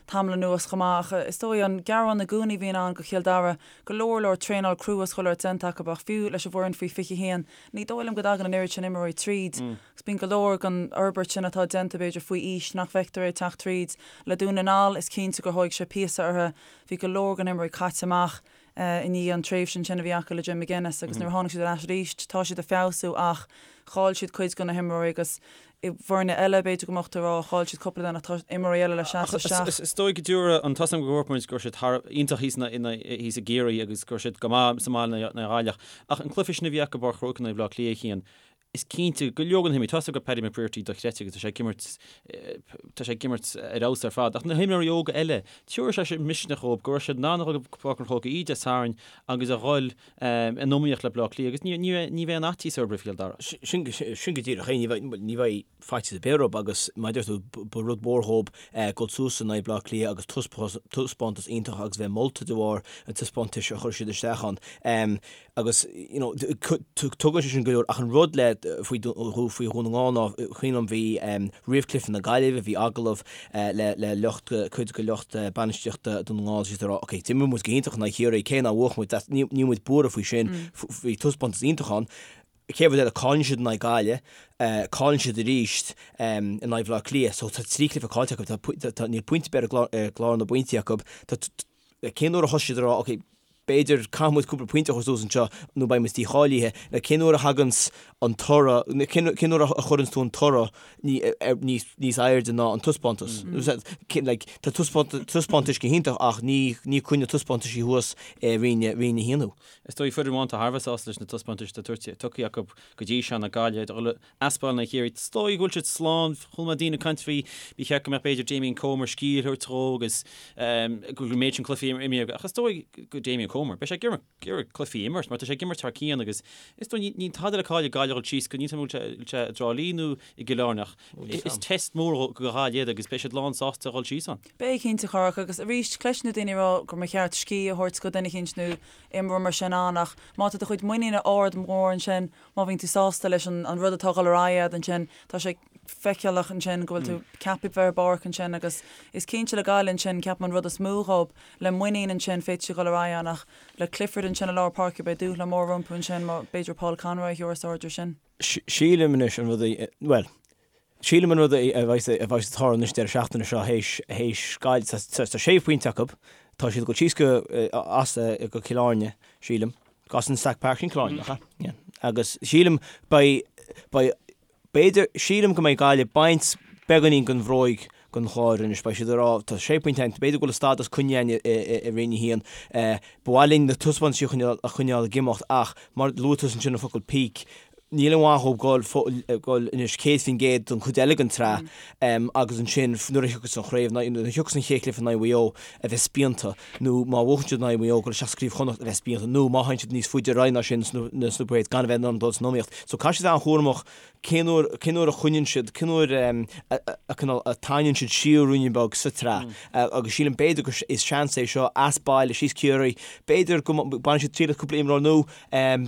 tamall anuas chomh maith ach is dóigh an gearán i gcónaí a bhíonn ann do Chill Dara, go leor leor traenáil crua is chuile shórt déanta acu ach fiú leis an bhfoireann faoi 21, ní dóigh liom go dtagann an oiread sin imreoirí tríd agus bíonn go leor den fhorbairt sin atá déanta b'fhéidir faoi aois nach bhfeictear é ag teacht tríd. Le Dún na nGall, is cinnte gur thóig sé píosa orthu, bhí go leor den imreoirí caite amach i ndiaidh an tréimhse ansin a bhí acu le Jim McGuinness agus nuair a tháinig siad ar ais arís tá siad ag feabhsú ach chaill siad cuid de na himreoirí agus i bhfoirne eile b'fhéidir go mbeadh tú ag rá chaill siad cúpla duine ach tá imreoirí eile le seasamh isteach. Is dóigh go dtabharfaidh an tá a fhios agam go ndúirt muid go raibh siad thar iontach thíos thíos i gCiarraí agus go raibh siad go maith sa mbaile in aghaidh Ghaillimh ach an cluiche sin a bhí acu i bPáirc an Chrócaigh in aghaidh Bhaile Átha Cliath a Chian Is cinnte go leor de na himreoirí, tá a fhios agam Paddy McBrearty dochreidte agus tá sé ag imirt, tá sé ag imirt ar fheabhas ar fad, ach na himreoirí óga eile, tabharfaidh sé sin misneach dhóibh go raibh siad in ann a dhul go Páirc an Chrócaigh oíche Dé Sathairn agus a dhul in iomaíocht le Baile Átha Cliath agus ní, ní, ní bheidh aon fhaitíos orthu roimh Chill Dara. Sin, sin go díreach é, ní bheidh, ní bheidh faitíos ar bith orthu agus mar a deir tú, ba rud mór dhóibh dul suas in aghaidh Baile Átha Cliath agus taispeántas iontach agus bheith molta de bharr an taispeántais a chuir siad isteach ann. Agus, you know, tugann sé sin go leor, ach an rud le, faoi, faoi Dhún na nGall ná, cuimhin liom bhí, roimh cluiche na Gaillimhe, bhí agallamh le, le lucht, cuid de lucht bainistíochta Dún na nGall, siad ag rá, ok, d'imir muid go hiontach in aghaidh Chiarraí, cé nár bhuaigh muid, that's, ní, níl muid buartha faoi sin, bhí taispeántas iontach ann. Chéad rud eile, cailleann siad in aghaidh Gaillimhe, cailleann siad arís in aghaidh Bhaile Átha Cliath, so tá 3 cluiche caillte acu, tá, tá, níl pointe ar bith ar gclár na bpointí acu, tá, cén uair a thosaigh siad ag rá, ok, b'fhéidir caithfidh muid cúpla pointe a chur suas anseo nó beidh muid dícháilithe, nó cén uair a thaganns an toradh, cén cén uair a chuireanns tú an toradh níos níos airde ná an taispeántas. Like, tá taispeántais go hiontach ach ní ní cuireann na taispeántaisí thuas i Roinn Roinn 1 thú. Is dóigh foireann amháin atá thar a bheith sásta leis na taispeántais atá tugtha acu go dtí seo ná Gaillimh. As baile in aghaidh Chiarraí. Is dóigh go bhfuil siad slán. Chuala mé daoine ag caint faoi, ba cheart go mbeadh b'fhéidir Damien Comer scíth a thabhairt dhó agus go bhfuil an méid sin cluichí imeartha aige. Ach is dóigh go Damien Comer, beidh sé ag iarraidh cluichí a imirt mar tá sé ag imirt thar cionn agus is dóigh níl tada le cailleadh ag Gaillimh a dhul síos go níl a fhios agam an bhfuil sé i dTrá Lí nó i gCill Airne ach is test mór do Ghaillimh iad agus beidh siad lán sásta a dhul síos ann. Beidh cinnte a Chárthaigh agus arís cloiseann tú daoine ag rá gur mba cheart scíth a thabhairt go duine eicínt nó imreoir mar sin ann ach má tá do chuid muiníne ard mór ansin Má bhíonn tú sásta leis an rud atá ag dul ar aghaidh agat ansin, tá sé feiceálach ansin go bhfuil tú ceaptha bheith ar an bpáirc ansin agus is cinnte le Gaillimh ansin, ceapaim an rud is mó dhób, le muinín ansin féadfaidh siad dul ar aghaidh ann ach le Clifford ansin i lár páirce beidh dúshlán mór rompu ansin má b'fhéidir Paul Conroy a thabharfas aird air sin. Sílim anois an rud a, bhuel, sílim an rud a bheas a bheas ag tarlú anois deireadh seachtaine seo théis théis Gaillimh, tá sé phointe acu, tá siad ag dul síos go as go Cill Airne, sílim. As an Stack Park sin Cill Airne, nach ea? Yeah. Agus sílim beidh, beidh, b'fhéidir, sílim go mbeidh Gaillimh ag baint beagáinín den bhróig den Chlár anois. Beidh siad ag rá, tá sé phointe againn, b'fhéidir go bhfuil an stádas coinnithe againn i, i, i Roinn 1. Eh, ba mhaith linn na taispeántaisí a choinneáil, a choinneáil ag imeacht ach mar luaigh tusa ansin an focal peak, Níl aon mhaith dhóibh dul anois 100% don chuid eile den tsraith agus ansin nuair a thiocfas an chraobh, nuair a thiocfas an chéad chluiche in aghaidh Mhaigh Eo a bheith spíonta nó má bhuachann siad in aghaidh Mhaigh Eo dul isteach sa Craobh Chonnacht a bheith spíonta nó má théann siad níos faide ar aghaidh ná sin sna play-offs gan a bheith in ann dul san iomaíocht. So caithfidh siad a bheith an-chúramach cén uair, cén uair a choinníonn siad, cén uair a cineál a tarraingíonn siad siar ruainne beag sa tsraith agus sílim b'fhéidir gur is seans é seo as baile síos Ciarraí, b'fhéidir go mbainfidh siad triail as cúpla imreoir nua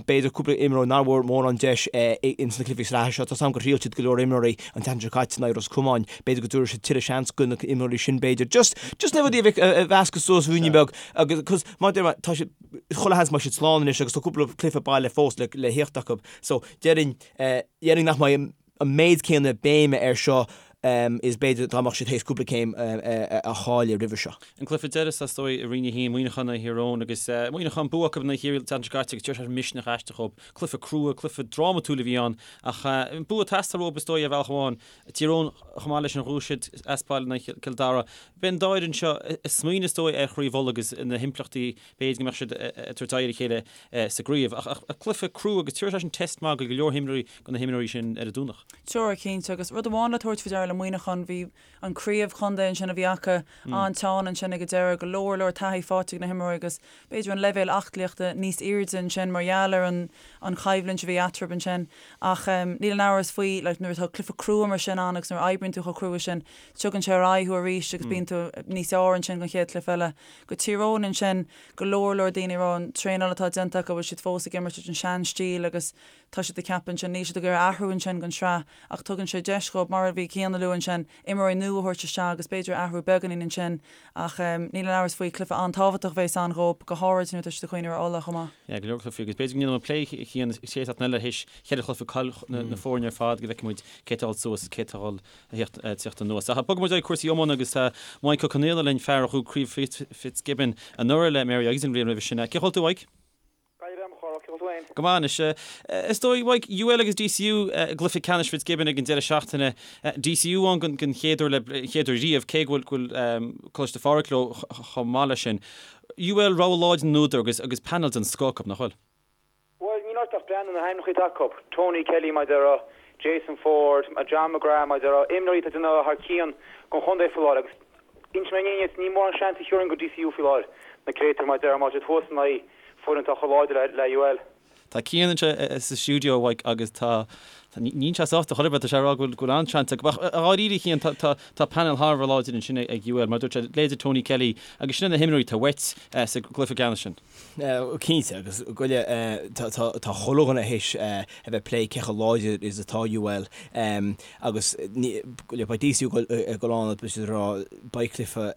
B'fhéidir cúpla imreoir nár bhfuair mórán deis ins na cluichí sraithe seo. Tá 's agam gur thriail siad go leor imreoirí an tseachtain seo caite in aghaidh Ros Comáin. B'fhéidir go dtabharfaidh siad tuilleadh seans do na imreoirí sin b'fhéidir. Just, just na rudaí a mheascadh suas ruainne beag agus, cos mar a deir mé, tá siad, chuile sheans go mbeidh siad slán anois agus tá cúpla cluiche baile fós le, le theacht acu. So, déarfainn, déarfainn nach mbeidh an méid céanna béime air seo. is b'fhéidir dá mbeadh siad théis cúpla céim a chailleadh roimhe seo. An cluiche deiridh is dóigh i Roinn 1, Muineachán in aghaidh Thír Eoghain agus Muineachán bua acu in aghaidh Chiarraí an tseachtain seo caite agus deir sé misneach aisteach dhóibh. Cluiche crua, cluiche drámatúil a bhí ann ach an bua ag teastáil uathu is dóigh ar bhealach amháin. Tír Eoghain chomh maith leis sin ghnóthaigh siad as baile in aghaidh Chill Dara. Beidh an dá fhoireann seo ag smaoineamh is dóigh ar Chraobh Uladh agus na himpleachtaí b'fhéidir go mbeadh siad ag tabhairt aghaidh ar a chéile sa gcraobh. Ach cluiche crua agus tabharfaidh sé sin test maith go go leor himreoirí go na himreoirí sin ar an Domhnach. Tabharfaidh, cinnte. Agus rud amháin le tabhairt faoi deara le Muineachán, bhí an craobh chontae ansin a bhí acu an-teann ansin ag an deireadh, go leor leor taithí faighte ag na himreoirí agus b'fhéidir an leibhéal aclaíochta níos airde ansin mar gheall ar an an choimhlint a bhí eatarthu ansin. Ach níl aon amhras faoi, like, nuair atá cluiche crua mar sin ann agus nuair a oibríonn tú chomh crua sin, tugann sé ar aghaidh thú arís agus bíonn tú níos fearr ansin don chéad chluiche eile. Go Tír Eoghain ansin, go leor leor daoine ag rá an traenáil atá déanta acu, bhfuil siad fós ag imirt an sean-stíl agus tá siad ag ceapadh ansin, níl siad ag iarraidh athrú ansin don sraith ach tugann sé deis dhóibh, mar a bhí Cian a lua ansin, imreoirí nua a thabhairt isteach agus b'fhéidir athrú beagáinín ansin ach níl aon amhras faoi, cluiche an-tábhachtach a bheas ann dhóibh, go háirid nuair atá siad ag cuimhneamh ar Ulaidh chomh maith. Yeah, go leor cluichí agus b'fhéidir go ndéanfaidh muid plé a Chian an chéad seachtain eile théis cheithre chluiche cáil na foirne ar fad go bhfeicfidh muid cé atá ag dul suas is cé atá ag dul tíocht anuas. Ach bogfaidh muid ag cúrsaí iomána agus tá Mike Ó Conaola linn, fear a ghnóthaigh Craobh Fitzgibbon anuraidh le Mary Agus an bhliain roimhe sin. Cén chaoi a bhfuil tú, Mike? Gaillimh am chorrach, cén chaoi a bhfuil tú féin? Go maith anois. Is dóigh, Mike, UL agus DCU i gcluiche ceannais Fitzgibbon ag an deireadh seachtaine. DCU ann den chéad uair le chéad uair riamh, cé go bhfuil Coláiste Phádraig leo chomh maith leis sin. UL rogha láidir na n-údar agus agus panel den scoth acu, nach bhfuil? Bhuel, níl ort ach breathnú na hainmneacha atá acu, Tony Kelly mar a déarfá, Jason Forde, John McGrath mar a déarfá, imreoirí atá ag déanamh thar cionn don chontae faoi láthair agus inseoidh mé an fhírinne duit, ní mórán seans a thiúrfainn go DCU faoi láthair, na créatúir mar a déarfá, má tá siad thuas in aghaidh foireann atá chomh láidir le UL. Tá Cian anseo sa stiúideo, a Mhaidhc, agus tá, níl sé sásta chor ar bith, tá sé ag rá go bhfuil an-seans acu. Ach dháiríre, a Chian, tá, tá panel thar a bheith láidir ansin ag UL, mar a dúirt sé, leithéidí Tony Kelly agus sin na himreoirí atá uait sa gcluiche ceannais sin. Cinnte, agus goile, tá chuile dhuine théis a bheith ag plé cé chomh láidir is atá UL agus goile, beidh DCU ag dul ann beidh siad ag rá beidh cluiche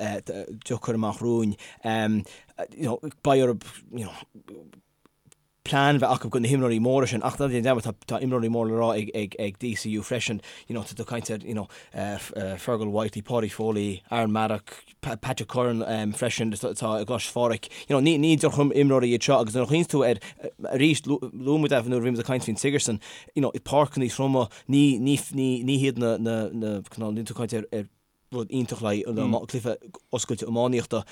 deacair amach romhainn, you know, beidh orthu, you know, plean bheith acu do na himreoirí móra sin ach ná déan dearmad tá imreoirí mór le rá ag DCU freisin, you know, tá tú ag caint ar, you know, Fergal Whitely, Paudie Foley, Aaron Maddock, Patrick Curran freisin atá i gColáiste Phádraig. You know, ní ní drochimreoirí iad seo agus nuair a chuimhníonn tú air arís, luaigh muid é nuair a bhí muid ag caint faoin Sigerson, you know, páirceanna troma, ní ní ní ní hiad na na na cineál, níl tú ag caint ar ar rud iontach le haghaidh cluiche oscailte iománaíochta.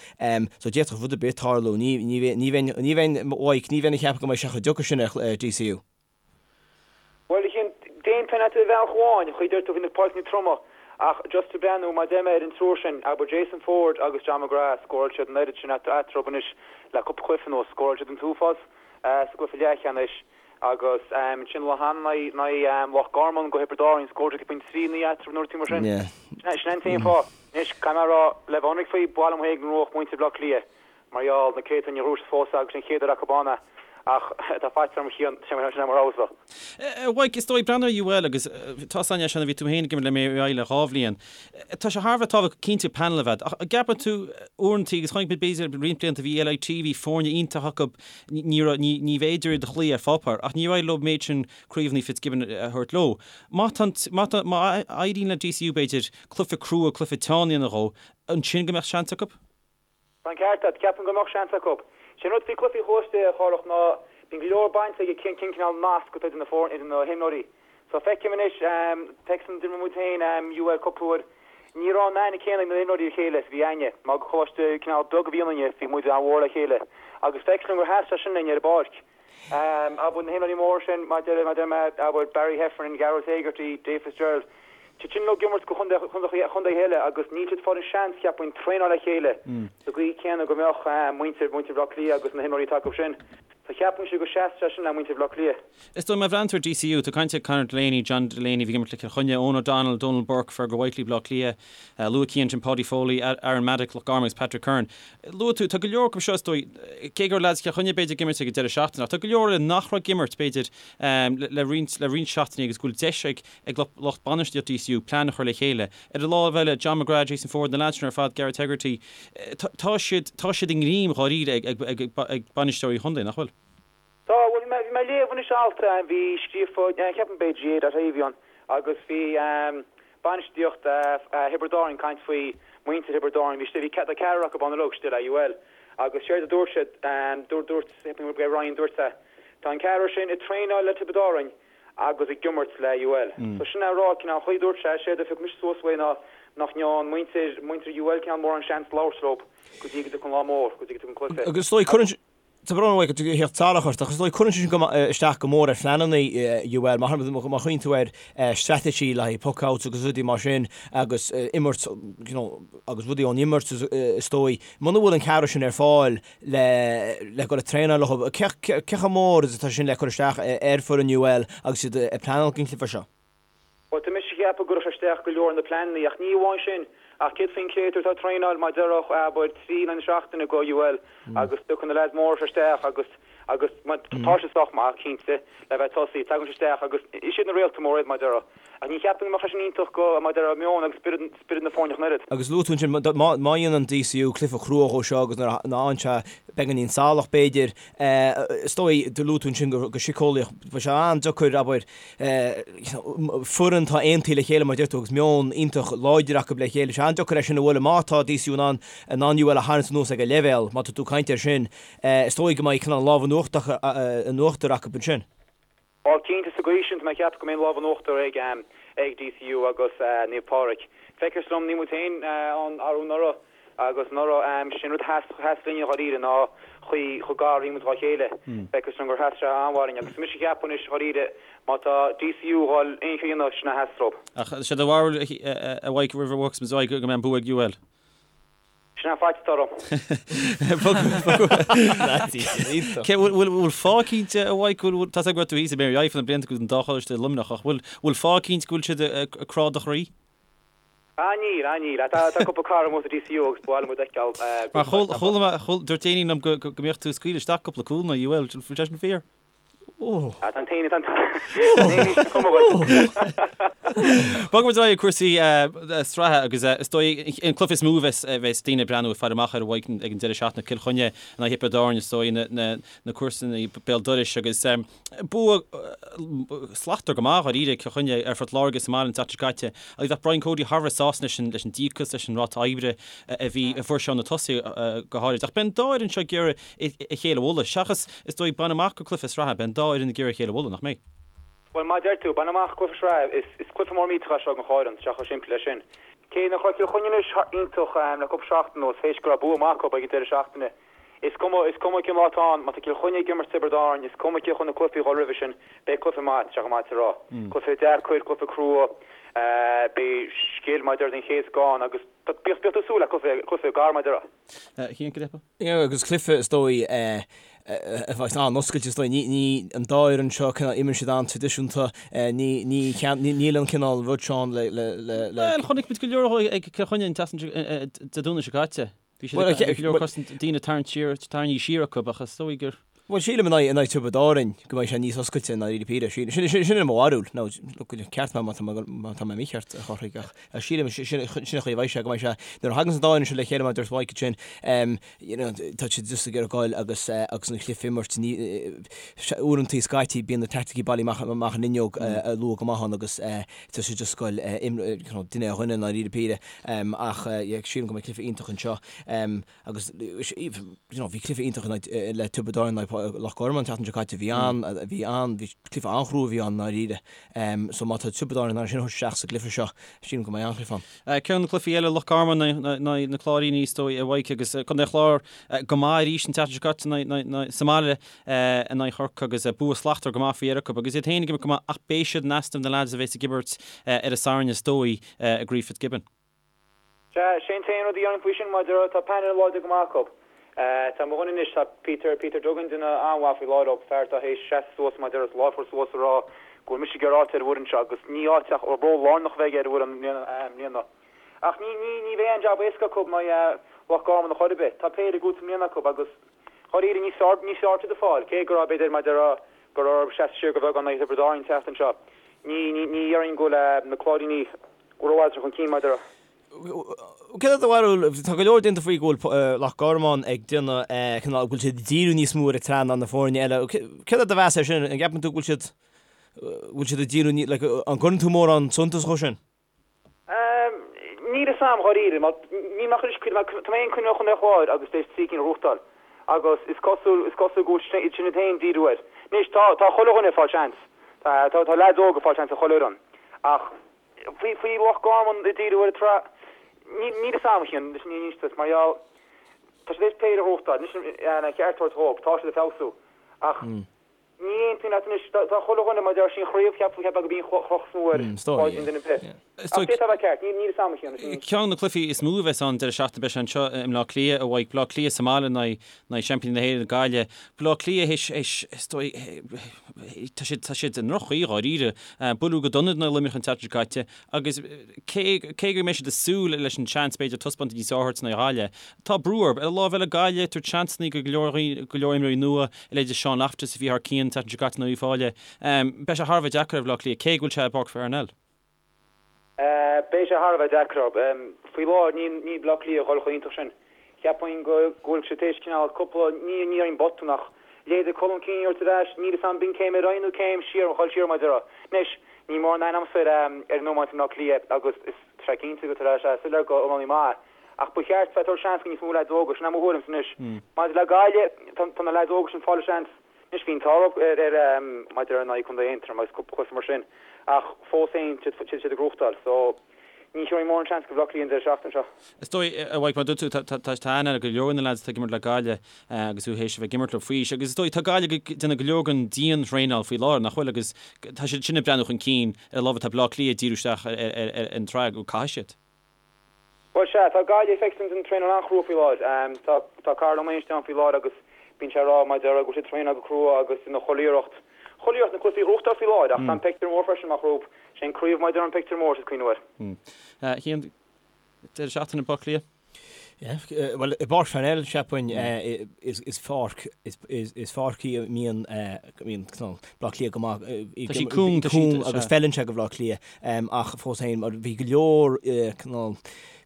So d'fhéadfadh rud ar bith tarlú. Ní ní ní bheinn ní bheinn Mhaidhc, ní bheinn ag ceapadh go mbeidh sé chomh deacair sin ar DCU. Bhuel, a Chian, d'aontóinn leat ar bhealach amháin, an chaoi a deir tú faoi na páirceanna troma, ach just ag breathnú, mar a deir mé, ar an triúr sin, abair Jason Forde agus John McGrath, scóráil siad an oiread sin eatarthu anois le cúpla cluiche anuas, scóráil siad an t-uafás sa gcluiche leathcheannais agus ansin an lá cheana in aghaidh Loch Garman go Thiobraid Árann, scóráil siad pointe 3 9 eatarthu nó rud mar sin. Sin an t-aon fáth. Anois, caithfidh mé a rá, le bheith ionraic faoi, ba mhaith liom féin go ngnóthódh muintir Bhaile Átha Cliath Mar gheall, na créatúir níor ghnóthaigh siad fós agus an chéad uair acu ann é, ach tá faitíos orm a Chian, sin é mo rogha-sa. A Mhaidhc, is dóigh, breathnú ar UL agus tá san sin a bhí tú féin ag imirt le Mary le dhá bhliain. Tá sé thar a bheith tábhachtach cinnte panel a bheith, ach an gceapann tú uaireanta, agus chonaic muid b'fhéidir roinnt blianta bhí LIT, bhí foirne iontach acu, ní raibh, ní, ní bhféidir iad a chloí ar pháipéar, ach níor éirigh leo an méid sin craobhanna Fitzgibbon a thabhairt leo. Má tá, má tá, má éiríonn le DCU b'fhéidir cluiche crua, cluiche teann a dhéanamh dhó, ansin go mbeadh seans acu? Tá an ceart agat, ceapaim go mbeadh seans acu. Sé an rud faoi cluichí choláiste, a Chárthach, ná bíonn go leor bainte ag cén cineál nasc atá idir na foirne, idir na himreoirí. So feicim anois, feicim d'imir muid féin UL cúpla uair, ní raibh an aithne céanna ag na himreoirí ar a chéile is a bhí againne. Mar gur choláiste cineál beag a bhí ionainne, bhí muid an-mhór le chéile. Agus feictear dom gur sheas sé sin linn ar an bpáirc. Abair, na himreoirí móra sin, mar a deir mé, abair, Barry Heffernan, Gearóid Hegarty, Dave Fitzgerald, tá siad sin uilig ag imirt do chontaetha eile agus níl siad ag fáil an seans, cheapfainn, traenáil le chéile sa gcaoi céanna go mbeadh muintir, muintir Bhaile Átha Cliath agus na himreoirí atá acu sin. So cheapfainnse go seasfadh sé sin le muintir Bhaile Átha Cliath. Is dóigh, má bhreathnaíonn tú ar DCU, tá caint ar Conor Delaney, John Delaney, a bhí ag imirt le Cill Chainnigh, Eoghan O'Donnell, Donal Burke, Fergal Whitely, Baile Átha Cliath, luaigh Cian ansin Paudie Foley, Aaron Maddock, Loch Garman agus Patrick Curran. Luaigh tú, tá go leor acu seo is dóigh, cé go raibh leaids Chill Chainnigh b'fhéidir ag imirt ag an deireadh seachtaine, ach tá go leor eile nach raibh ag imirt b'fhéidir le roinnt, le roinnt seachtainí agus go bhfuil deis ag ag lucht bainistíochta DCU plean a chur le chéile. Ar an lámh eile, John McGrath, Jason Forde, na leaids sin ar fad, Gareth Hegarty, tá siad, tá siad i ngreim dháiríre ag, ag, ag bainisteoirí chontae, nach bhfuil? Tá, bhuel, bhí mé, bhí mé ag léamh anois alt a bhí scríofa, ceapaim b'é GAA dot ie a bhí ann, agus bhí. bainistíocht Thiobraid Árann ag caint faoi muintir Thiobraid Árann, bhí bhí tá ceathrar acu ann uilig istigh le UL agus séard a dúirt siad, dúirt dúirt Ryan dúirt sé, tá an ceathrar sin ag traenáil le Tiobraid Árann agus ag imirt le UL. So sin é a rá, cineál an chaoi a dúirt sé, séard a phioc mise suas uaidh ná nach ndearn muintir muintir UL cineál mórán seans labhairt leo go dtí go dtiocfaidh an lá mór, go dtí go dtiocfaidh an cluiche. Agus is dóigh cuireann Tá brón orm a theacht salach ort, ach is dóigh cuireann sé sin isteach go mór ar phleananna UL, má chuimhníonn tú ar straitéisí le haghaidh puck-outs agus rudaí mar sin agus imirt, you know, agus rudaí ón imirt is dóigh. Muna bhfuil an ceathrar sin ar fáil le le dul ag traenáil leo, cé chomh mór is atá sin le cur isteach ar foireann UL agus iad ag pleanáil don chluiche seo? Bhuel, tá mise ag ceapadh go gcuirfeadh sé isteach go leor ar na pleananna, ach ní amháin sin, ach céard faoin créatúr atá ag traenáil mar déarfá, abair, 3 in aghaidh na seachtaine go UL agus tiocfaidh na leaids móra seo isteach agus, agus tá siad sách maith, cinnte, le bheith ag tosaí, tagann siad isteach agus is iad na réalta móra iad, mar déarfá. Ach ní cheapaim go mbeadh sé sin iontach go, mar déarfá, meon agus spiorad, spiorad na foirne ach an oiread. Agus luaigh tú ansin, má, má dhéanann DCU cluiche crua dhó seo agus nuair a fhaigheann sé beagáinín salach, b'fhéidir, is dóigh, do luaigh tú ansin go, go síceolaíoch, beidh sé an-deacair, abair, foireann atá aontaithe le chéile mar a deir tú agus meon iontach láidir acu le chéile. Sé an-deacair é sin a bhualadh má tá DCU in ann in ann UL a tharraingt anuas ag a leibhéal, má tá tú ag caint air sin, is dóigh go mbeidh cineál lámh in uachtar acu ansin. Bhuel, cinnte, sa gcaoi sin, tá mé ag ceapadh go mbeidh an lámh in uachtar ag ag DCU agus Naomh Pádraig. Feictear dom, bhí muid féin ann arú anuraidh Agus anuraidh, sin rud a sheas, sheas linne dháiríre ná chaoi chomh gar a bhí muid dhá chéile. Feictear dom gur sheas sé an-mhaith linn agus mise ag ceapadh anois dháiríre má tá DCU a dhul aon cheo a dhéanamh sin a sheas leo. Ach sé do bharúil a Mhaidhc roimh a bhfágfas muid go mbeidh an bua ag UL? Sin an faitíos atá orm. Cé bhfuil fáth cinnte a Mhaidhc, bhfuil, tá 's agam go raibh tú thíos i Mary Eiffel na blianta go bhfuil an dá choláiste i Luimneach ach bhfuil fáth cinnte go bhfuil siad ag crá do chroí? Ah níl, ah níl. Tá cúpla cara amuigh sa DCU agus ba mhaith liom iad a fheiceáil. Mar chuala mé, dúirt éinne liom go mbíodh tú ag scaoileadh isteach cúpla cúl in aghaidh UL, bhfuil sé sin fíor? Ah tá an t-aon, tá an t-aon sin cuma dhuit. Bogfaidh muid ar aghaidh ag cúrsaí sraithe agus is dóigh an cluiche is mó a bheas daoine ag breathnú ag faire amach air a Mhaidhc ag an deireadh seachtaine, Cill Chainnigh in aghaidh Thiobraid Árann is dóigh na comharsana béal dorais agus Bua slachtmhar go maith dháiríre ag Cill Chainnigh ar Phort Láirge sa mbaile an tseachtain seo caite agus bheadh Brian Cody thar a bheith sásta leis an leis an díocas, leis an ráta oibre a bhí a fuair sé ó na tosaithe go háirid. Ach beidh an dá fhoireann seo ag iarraidh a chéile a bhualadh. Seachas, is dóigh, baint amach go cluiche sraithe, beidh an dá fhoireann ag iarraidh a chéile a bhualadh, nach mbeidh? Bhuel, mar a deir tú, baint amach cluiche sraithe, is is cluiche mór millteach é seo don chomhaireann, tá sé chomh simplí leis sin. Cé nach raibh Cill Chainnigh anois iontach le cúpla seachtain anuas, théis go raibh bua maith acu ag an deireadh seachtaine, Is cuma, is cuma cén lá atá ann, má tá Cill Chainnigh ag imirt Tiobraid Árann, is cuma cé chun na cluichí a dhul roimhe sin, beidh cluiche maith, tá sé chomh maith is a rá. Cluiche deacair, cluiche crua, beidh scil mar a déarfá den chéad scoth ann agus bíodh, bíodh tú ag súil le cluiche, cluiche gar mar a déarfá. Cian, cad é? Yeah, agus cluiche is dóigh a bheas an-oscailte is dóigh, ní, ní, an dá fhoireann seo, cineál, imríonn siad an-traidisiúnta, ní, ní, níl an cineál rud seo ann le, le, le, le. Bhuel, chonaic muid go leor ag Cill Chainnigh an tseachtain seo, Dé Domhnaigh seo caite. Bhí siad ag go leor cosaint daoine tarraingt siar, tarraingthe siar acu ach is dóigh gur. Bhuel, sílim in aghaidh, in aghaidh Tiobraid Árann go mbeidh sé níos oscailte i ndáiríre píre. Sin, sin, sin é mo bharúil. Now, look, ceart mé má tá mé, má tá mé mícheart, a Chárthaigh, ach sílim, sin, sin an chaoi a bheidh sé, go mbeidh sé, nuair a thagann an dá fhoireann seo le chéile mar a dúirt Mike ansin, em, you know, tá siad just ag iarraidh goil agus, eh, agus an cluiche a imirt, ní, eh, uaireantaí scaití bíonn na teaicticí bailithe amach, amach an fhuinneog, eh, luath go maith ann agus, eh, tá siad just ag goil, eh, imr, eh, you know, duine ar dhuine i ndáiríre píre. Ach sílim go mbeidh cluiche iontach anseo agus you know bhí cluiche iontach le Tiobraid Árann in aghaidh Loch Garman an tseachtain seo caite. Bhí an, bhí an, bhí cluiche an-chrua a bhí ann i ndáiríre. So má tá Tiobraid Árann in ann sin a thabhairt isteach sa gcluiche seo, sílim go mbeidh an-chluiche ann. Ceann de na cluichí eile, Loch Garman in aghaidh na Cláiríní is dóigh a Mhaidhc agus Contae an Chláir go maith arís an tseachtain seo caite sa mbaile in aghaidh Chorcaí agus bua slachtmhar go maith faoi dheireadh acu agus iad féin ag imirt go maith ach beidh siad in easnamh na leaids a bheas ag imirt ar an Satharn is dóigh. i gCraobh Fitzgibbon. Sea, sé an t-aon rud a dhéarfainn faoi sin, mar a déarfá, tá painéal láidir go maith acu. Tá mo dhuine anois, tá Peter, Peter Duggan, duine an-mhaith faoi láthair leo, fear atá théis seasamh suas, mar a déarfá, lámh a chur suas a rá go bhfuil mise ag iarraidh áit ar an bhfoireann seo agus ní áit ach ról lárnach a bheidh aige ar an bhfoireann i mbliana. Ach ní, ní, ní bheidh aon jab éasca acu in aghaidh Loch Garman a chor ar bith. Tá péire ag i mbliana acu agus dháiríre níos fearr, níos fearr siad ag fáil, cé go raibh, b'fhéidir, mar a déarfá, go raibh orthu seasamh siar go beagán in aghaidh Thiobraid Árann an tseachtain seo. Ní, ní, ní dhéarfainn go bhfuil na Cláiríní rófhada chun cinn mar a déarfá. Céard é do bharúil, tá go leor déanta faoi go bhfuil Loch Garman ag déanamh, cineál, go bhfuil siad ag díriú níos mó ar an tsraith ná na foirne eile. Céard é do mheas air sin? An gceapann tú go bhfuil siad, go bhfuil siad ag díriú, like, an gcuireann tú mórán suntas dhó sin? fhios a'm dháiríre, mar níl mé ach anois, tá mé féin cuimhneach Chontae an Chláir agus tar éis trí cinn a ghnóthachtáil agus is cosúil, is cosúil go bhfuil sin iad féin díriú air. Anois tá, tá chuile dhuine ag fáil seans, tá, tá leaids óga ag fáil seans i chuile fhoireann ach faoi, faoi Loch Garman ag díriú ar an tsraith, níl, níl fhios a'm a Chian, leis an fhírinne a inse duit, mar gheall, tá siad tar éis péire a ghnóthachtáil, anois an ceart a thabhairt dhóibh, tá siad ag feabhsú ach, Ní aontaím leat anois. Tá chuile dhuine, mar a deir sí, an chraobh, cheapfá gurb í an chloch is mó ar bháidín duine ar bith. Ach d'fhéadfadh a bheith ceart, níl fhios a'm a Chian. Ceann de na cluichí is mó a bheas ann deireadh seachtaine, beidh sé anseo i mBleá Cliath, a Mhaidhc. Bleá Cliath sa mbaile in aghaidh seaimpíní na hÉireann, Gaillimh. Bleá Cliath théis, théis, is dóigh, tá siad, tá siad i ndroch-chaoi dháiríre. Buaileadh go dona in aghaidh Luimneach an tseachtain seo caite agus cé, cé go mbeidh siad ag súil leis an seans b'fhéidir taispeántas níos fearr a thabhairt in aghaidh Ghaillimh, tá brú orthu. Ar an lámh eile Gaillimh, tabhairt seansanna go leor, go leor imreoirí nua, a leithéid de Sean Loftus a bhí thar cionn an tseachtain seo caite in aghaidh Uíbh Fhailí. Beidh sé thar a bheith deacair ar Bhaile Átha Cliath, cé go bhfuil sé i bPáirc Pharnell. Beidh sé thar a bheith deacair orthu. Faoi láthair níl Baile Átha Cliath ag dul chomh hiontach sin. Cheapfainn go bhfuil siad tar éis cineál cúpla, ní déarfainn botún ach leithéidí Colm Keane a thabhairt ar ais, níl fhios a'm b'in céim ar aghaidh nó céim siar, dhul siar mar a déarfá. Anois, níl mórán aithne a'msa ar an iomáint i mBleá Cliath agus is tá sé cinnte go tá sé soiléir go iománaí maith é. Ach ba cheart bheith ag tabhairt seans go níos mó leaids óga, sin é mo thuairimse anois. Maidir le Gaillimh, tá na leaids óga sin ag fáil a seans. Anois bhí an t-ádh orthu ar maidir in aghaidh Contae Aontroim agus cúpla cluiche mar sin ach fós féin tá siad ag gnóthachtáil so ní thabharfainn mórán seans go Bhaile Átha Cliath an deireadh seachtaine seo. Is dóigh, a Mhaidhc, mar a dúirt tú, tá aithne ag go leor de na leaids atá ag imirt le Gaillimh agus thú théis a bheith ag imirt leo faoi aois agus is dóigh tá Gaillimh ag déanamh go leor den dian-thraenáil faoi láthair, nach bhfuil, agus tá siad sin ag breathnú chun cinn ar an lámh atá Baile Átha Cliath ag díriú isteach ar an tsraith go caithfidh siad. Bhuel, sea, tá Gaillimh feicthe ag traenáil an-chrua faoi láthair. Tá tá Karl Ó Mainstin ann faoi láthair agus bíonn sé ag rá mar a déarfá go bhfuil siad ag traenáil go crua agus ina chuile iarracht, chuile iarracht na cluichí a ghnóthachtáil faoi láthair ach tá an pictiúr mór freisin amach rompu. Sé an craobh mar a déarfá an pictiúr mór is cuimhneamh air. A Chian, deireadh seachtaine i mBaile Átha Cliath? Yeah, bhuel, i bPáirc Pharnell, cheapfainn, is pháirc, is pháirc í a mbíonn, mbíonn Baile Átha Cliath go maith, Tá sí cúng, tá sí, cúng agus feileann sé go Bhaile Átha Cliath, ach fós féin, mar bhí go leor, cineál,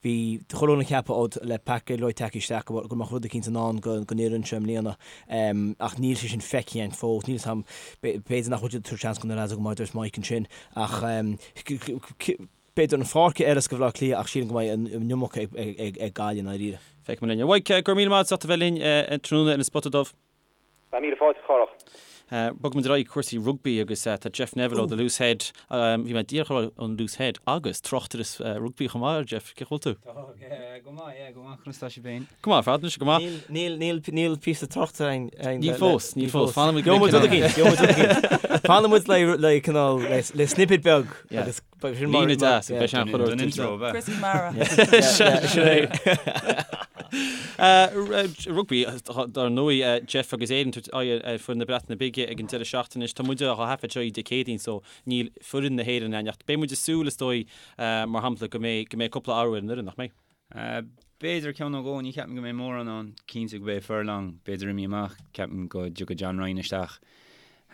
bhí chuile dhuine ag ceapadh ó le Pat Gilroy tagtha isteach go go mbeadh rud eicínt i ndán don fhoireann seo i mbliana, ach níl sé sin feicthe againn fós, níl 'fhios a'm, b'fhéidir nach bhfuil siad ag tabhairt seans do na lads go maith, dúirt Mike ansin, ach B'fhéidir an pháirc a fheilfeas do Bhaile Átha Cliath ach sílim go mbeidh an iomarca ag Gaillimh i ndáiríre. Feicfidh muid linn. A Mhaidhc, go raibh míle maith agat as ucht a bheith linn tráthnóna ar an Spota Dubh. Tá míle fáilte, a Chárthach. Bogfaidh muid ar aghaidh cúrsaí rugbaí agus tá Jeff Neville ó The Loose Head, bhí mé díreach a rá ón Loose Head agus tráchtaire rugbaí chomh maith, Jeff, cén chaoi a bhfuil tú? Tá, go maith, yeah, go maith, conas tá sibh féin? Go maith ar fad, anois, go maith. Níl, níl, níl píosa tráchta againn. Níl fós, níl fós. Fanfaidh muid. Gheobhaidh muid rud eicínt, gheobhaidh muid rud eicínt. Fanfaidh muid le, le cineál, le, le snippet beag agus beidh sin mar. Líne deas, beidh sé an chuid Don intro, ab ea? Chris Kamara. Sin é. Rugbaí, dar ndóigh, Jeff agus Éirinn ag tabhairt aghaidh ar foireann na Breataine Bige ag an deireadh seachtaine anois. Tá muid á thaifead seo Dé Céadaoin so níl foireann na hÉireann ann ach beidh muid ag súil, is dóigh, mar shampla, go mbeidh, go mbeidh cúpla athrú ar an fhoireann, nach mbeidh? B'fhéidir ceann nó dhó, ní cheapaim go mbeidh mórán ann. Cinnte go mbeidh Furlong, b'fhéidir imithe amach, ceapaim go dtiocfaidh John Ryan isteach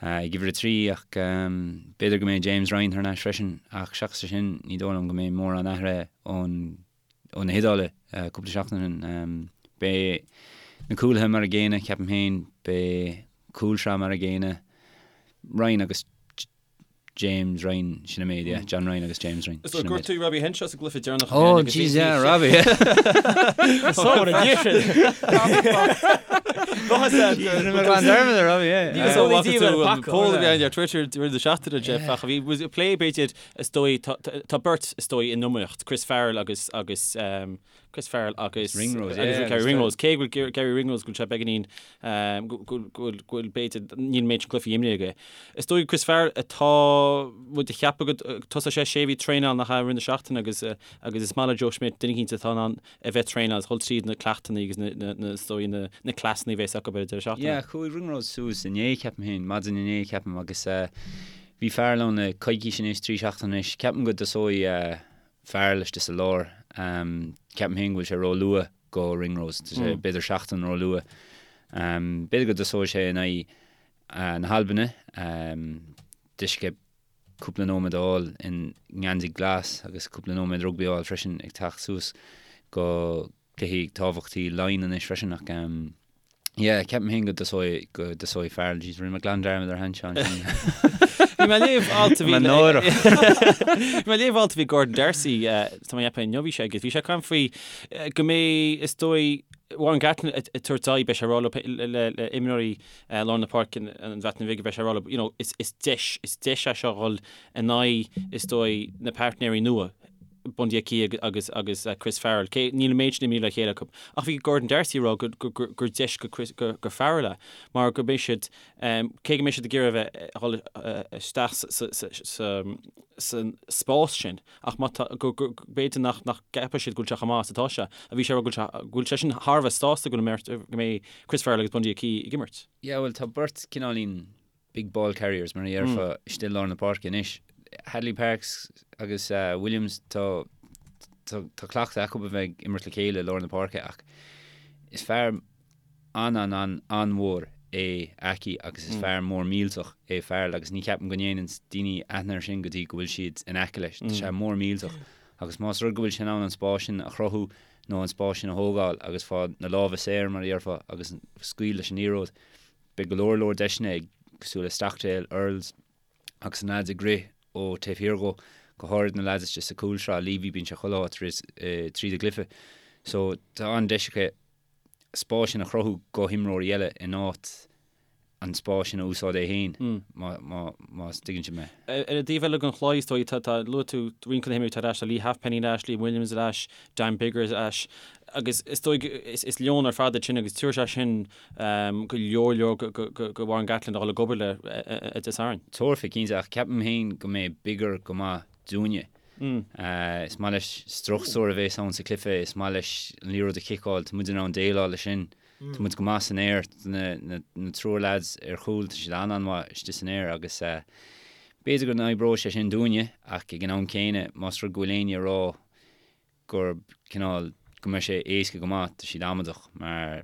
ag uimhir a 3 ach b'fhéidir go mbeidh James Ryan thar n-ais freisin ach seachas é sin ní dóigh liom go mbeidh mórán athraithe ón ó na hIodáile cúpla seachtain ó shin. Beidh na cúlaithe mar a gcéanna, ceapaim féin, beidh cúlsraith mar a gcéanna, Ryan agus James Ryan, sin an méid, yeah. John Ryan agus James Ryan. Sin an méid. Gortaíodh Robbie Henshaw sa gcluiche deireanach Oh, jeez, yeah, Robbie. Só an dia sin. Paul a bhí ar Twitter during the seachtaine, Jeff, ach bhí plé b'fhéidir is dóigh tá beirt is dóigh in iomaíocht, Chris Farrell agus agus Chris Farrell agus Ringrose, yeah, agus Garry Ringrose. Cé go bhfuil Garry Ringrose go bhfuil sé beagáinín go bhfuil go bhfuil b'fhéidir níl an méid sin cluichí imrithe aige. Is dóigh Chris Farrell atá muid a cheapadh go tosóidh sé sé bhí traenáil nach ea i rith na seachtaine agus agus is maith le Joe Schmidt duine eicínt atá in ann a bheith traenáil agus dhul tríd na cleachtanna agus na na na is dóigh na na cleasanna a bheas acu ar an deireadh seachtaine. Yeah, chuaigh Ringrose suas inné ceapaim féin, maidin inné ceapaim agus bhí Farrell ann le coicís anois, trí seachtaine anois. Ceapaim go dtosóidh Farrell istigh sa lár. Ceapaim féin go bhfuil sé ró-luath go Ringrose. Tá sé b'fhéidir seachtain ró-luath. B'fhéidir go dtosóidh sé in aghaidh na hAlbaine. Deis aige cúpla nóiméad a fháil i ngeansaí glas agus cúpla nóiméad rugbaí a fháil freisin ag teacht suas go cluichí tábhachtaí Laighean anois freisin ach yeah ceapaim féin go dtosóidh go dtosóidh Farrell. Jeez, rinne mé glan dearmad ar Henshaw ansin. Bhí mé ag léamh alt a bhí Mé náireach. Bhí mé ag léamh alt a bhí Gordon D'Arcy, tá mé ag ceapadh inniu bhí sé agus bhí sé ag caint faoi go mbeidh, is dóigh, Warren Gatland ag tabhairt aghaidh, beidh sé ag rá le le imreoirí lár na páirce an Bhreatain Bhig, beidh sé ag rá leo, you know, is is deis, is deis é seo dhul in aghaidh, is dóigh, na pairtnéirí nua, Bundee Aki agus agus Chris Farrell. Cé níl an méid sin imeartha le chéile acu. Ach bhí Gordon D'Arcy ag rá go go gur deis go Chris go go Farrell é mar go mbeidh siad cé go mbeidh siad ag iarraidh a bheith a dhul isteach sa sa sa sa san spás sin ach má tá go go b'fhéidir nach nach gceapfaidh siad go bhfuil sé chomh maith is atá sé. A bhí sé ag rá go bhfuil sé go bhfuil sé sin thar a bheith sásta go bhfuil go mbeidh Chris Farrell agus Bundee Aki ag imirt. Yeah bhuel tá beirt cineáilín big ball carriers mar a dhéarfá istigh i lár na páirce anois. Hadley Parkes agus Williams tá tá cleachtadh acu a bheith ag imirt le chéile i lár na páirce ach is fear an-an-an-an-mhór é Aki agus is fear mór millteach é Farrell agus ní cheapaim go ndéanann daoine aithne air sin go dtí go bhfuil siad in aice leis. Tá sé mór millteach agus más rud go bhfuil sé in ann an spás sin a chruthú nó an spás sin a thógáil agus fáil na lámha saor mar a dhéarfá agus scaoil leis an liathróid Beidh go leor leor deiseanna ag cosúil le Stockdale, Earls agus na leaids ag rith ó taobh thiar dhó, go háirid na leaids istigh sa chúlsraith, Leavy, bíonn sé chuile áit tríd an gcluiche. So tá an-deis acu spás sin a chruthú go himreoirí eile in áit an spás sin a úsáid é féin, má tuigeann sibh mé. Ar an dtaobh eile den chluiche, is dóigh, tá, luaigh tú roinnt de na himreoirí atá ar ais, tá Leigh Halfpenny ar ais, Liam Williams ar ais, Dan Biggar ar ais agus is dóigh is leon ar fad iad sin agus tabharfaidh sé sin go leor leor go Warren Gatland a dhul ag obair le Dé Sathairn. Tabharfaidh, cinnte, ach ceapaim féin go mbeidh Biggar go maith dúinne. Is maith leis struchtúr a bheas ann sa chluiche, is maith leis an liathróid a chiceáil, tá muid in ann déileáil leis sin. Tá muid go maith san aer, na triúr leaids ar chúl, tá siad an-an-mhaith istigh san aer agus b'fhéidir go n-oibreoidh sé sin dúinne ach ag an am céanna más rud go bhfuil éinne ag rá gur cineál go mbeidh sé éasca go maith, tá siad amaideach mar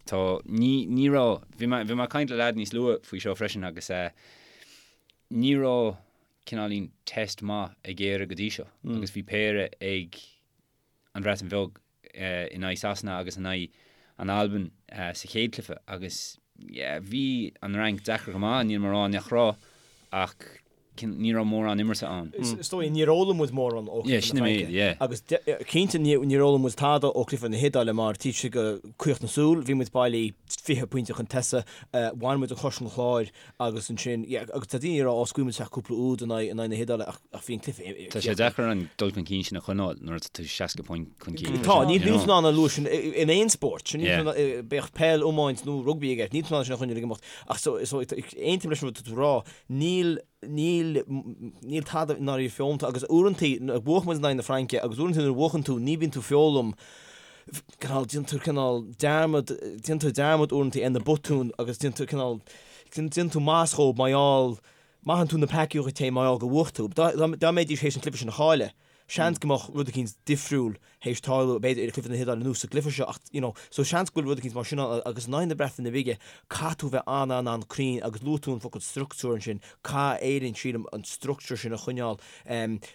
tá, ní, ní raibh, bhí mé, bhí mé ag caint le leaid níos luaithe faoi seo freisin agus eh ní raibh cineáilín test maith ag Éire go dtí seo agus bhí péire ag an Bhreatain Bheag in aghaidh Sasana agus in aghaidh an Albain sa chéad cluiche agus yeah bhí an Fhrainc deacair go maith, níl mé ag rá nach raibh ach ní raibh mórán imeartha ann. Is dóigh, níor fhoghlaim muid mórán ó chluiche na Fraince. Yeah. Agus cinnte níor fhoghlaim muid tada ó chluiche na hIodáile mar taobh istigh de chaoch na súl, bhí muid bailí 20 pointe chun tosaigh, bhain muid an chos ón chlár Agus ansin, yeah, agus tá daoine ag rá, ó, scaoil muid isteach cúpla úd in aghaidh, in aghaidh na hIodáile, ach, ach bhí an cluiche, Tá sé deacair an dul chun cinn sin a choinneáil nuair atá tú 60 point chun cinn. Tá, níl tú in ann an luas sin in aon spórt, sin, níl tú in ann, bíodh peil, iomáint nó rugbaí i gceist, níl tú in ann sin a choinneáil ag imeacht. Ach so, so, aontaím leis an rud atá tú ag rá, níl, níl, níl tada i ndáiríre foghlamtha agus uaireantaí, bhuaigh muid in aghaidh na Fraince agus uaireantaí nuair a bhuachann tú, ní bhíonn tú ag foghlaim, cineál, déanann tú cineál dearmad, déanann tú dearmad uaireanta ar na botúin agus déanann tú cineál, déanann tú maitheas dhóibh mar gheall, maitheann tú na peacaí dhuit féin mar gheall gur bhuaigh tú. Dá, dá mbeidís théis an cluiche sin a chailleadh, seans go mbeadh rud eicínt difriúil théis tarlú, b'fhéidir, i gcluiche na hIodáile nó sa gcluiche seo ach, you know, so seans go bhfuil rud eicínt mar sin ann agus in aghaidh na Breataine Bige, caithfidh tú bheith an-an-an-cruinn agus luaigh tú an focal structúr ansin, caithfidh Éirinn, sílim, an structúr sin a choinneáil.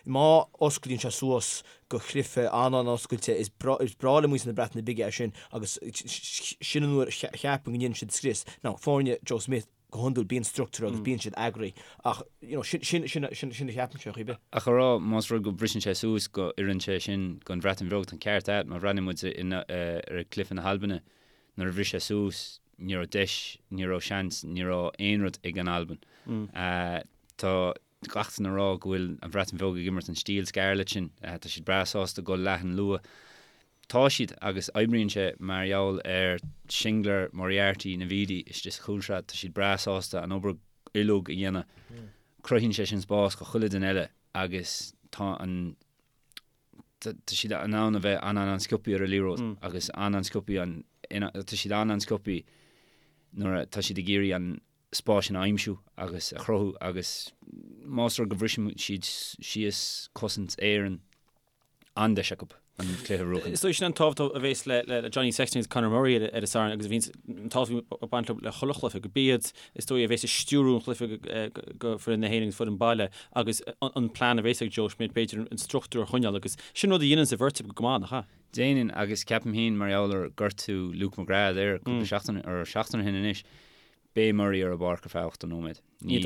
Má osclaíonn sé suas go cluiche an-an-oscailte. Is breá le muintir na Breataine Bige é sin agus sin an uair a cheapaim go ndéanann siad scrios. Now, foirne Joe Schmidt, go hiondúil, bíonn structúr agus bíonn siad eagraithe ach, you know, sin, sin, sin, sin, sin a cheapaimse, ar chaoi ar bith. Ach a rá, más rud go mbriseann sé suas go oireann sé sin don Bhreatain Bheag, tá an ceart agat, má bhreathnaíonn muid ar chluiche na hAlbana, nuair a bhris sé suas, ní raibh deis, ní raibh seans, ní raibh aon rud ag an Albain. Tá. Gach duine ag rá go bhfuil an Bhreatain Bheag ag imirt an stíl Scarlett sin. Tá siad breá sásta dul leathan luath. Tá siad agus oibríonn sé mar gheall ar Shingler, Moriarty, Navidi istigh sa chúlsraith. Tá siad breá sásta an obair uilig a dhéanamh. Cruthaíonn sé sin spás do chuile duine eile agus tá an tá siad in ann a bheith an-an-an-sciobthaí ar an liathróid agus an-an-sciobthaí an tá siad an-an-sciobthaí nuair atá siad ag iarraidh an spás sin a aimsiú agus a chruthú agus más rud go bhriseann siad síos cosaint Éireann, an-deis acu an cluiche a bhuachan. Is dóigh sin an tábhacht a bhéas le Johnny Sexton agus Conor Murray ar an Satharn agus a bhíonns an tábhacht ag baint le chuile chluiche, go b'iad is dóigh a bhéas ag stiúrú an chluiche go foireann na hÉireann agus foireann baile agus an plean a bhéas ag Joe Schmidt b'fhéidir an struchtúr a choinneáil agus sin rud a dhéanann an bheirt acu go maith, nach ea? Déanann agus ceapaim féin mar gheall ar gortú Luke McGrath there cúpla seachtain, or seachtain ó shin anois. Beidh Murray ar an bpáirc ar feadh 80 nóiméad. Ní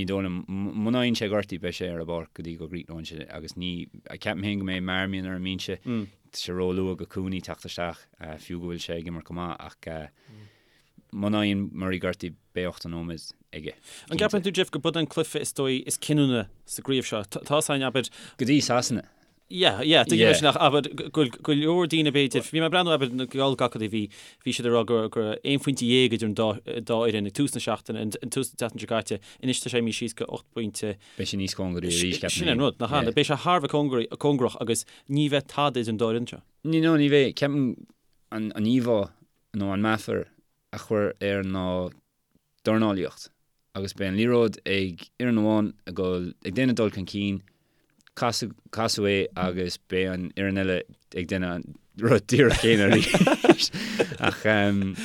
dóigh liom, muna fhaigheann sé gortú, beidh sé ar an bpáirc go dtí go gcríochnóidh sé agus ní, ceapaim féin go mbeidh Marmion ar an mbinse, tá sé róluath go Cooney teacht isteach, fiú go bhfuil sé ag imirt go maith ach muna fhaigheann Murray gortú beidh 80 nóiméad aige. An gceapann tú, Jeff, go b'in an cluiche is dóigh is cinniúna sa gcraobh seo? Tá a fhios againn, abair. Go dtí Sasana. Yeah, yeah, tuigim é sin ach abair go go leor daoine b'fhéidir, bhí mé ag breathnú abair na geallghacaidí bhí bhí siad ag rá go go raibh aon phointe dhéag idir an dá dá fhoireann ag tús na seachtaine, an an tús na seachtaine seo caite, anois tá sé imithe síos go 8 bpointe. Beidh sé níos cóngaraí arís, ceapaim Sin an rud, nach ea? Beidh sé thar a bheith cóngaraí, cóngarach agus ní bheidh tada idir an dá fhoireann seo. Ní, no, ní bheidh, ceapaim an an íomhá nó an meafar a chuir air ná dornálaíocht agus beidh an liathróid ag fhoireann amháin ag dul ag déanamh dul chun cinn, casadh casadh é agus beidh an fhoireann eile ag déanamh an rud díreach céanna arís. Ach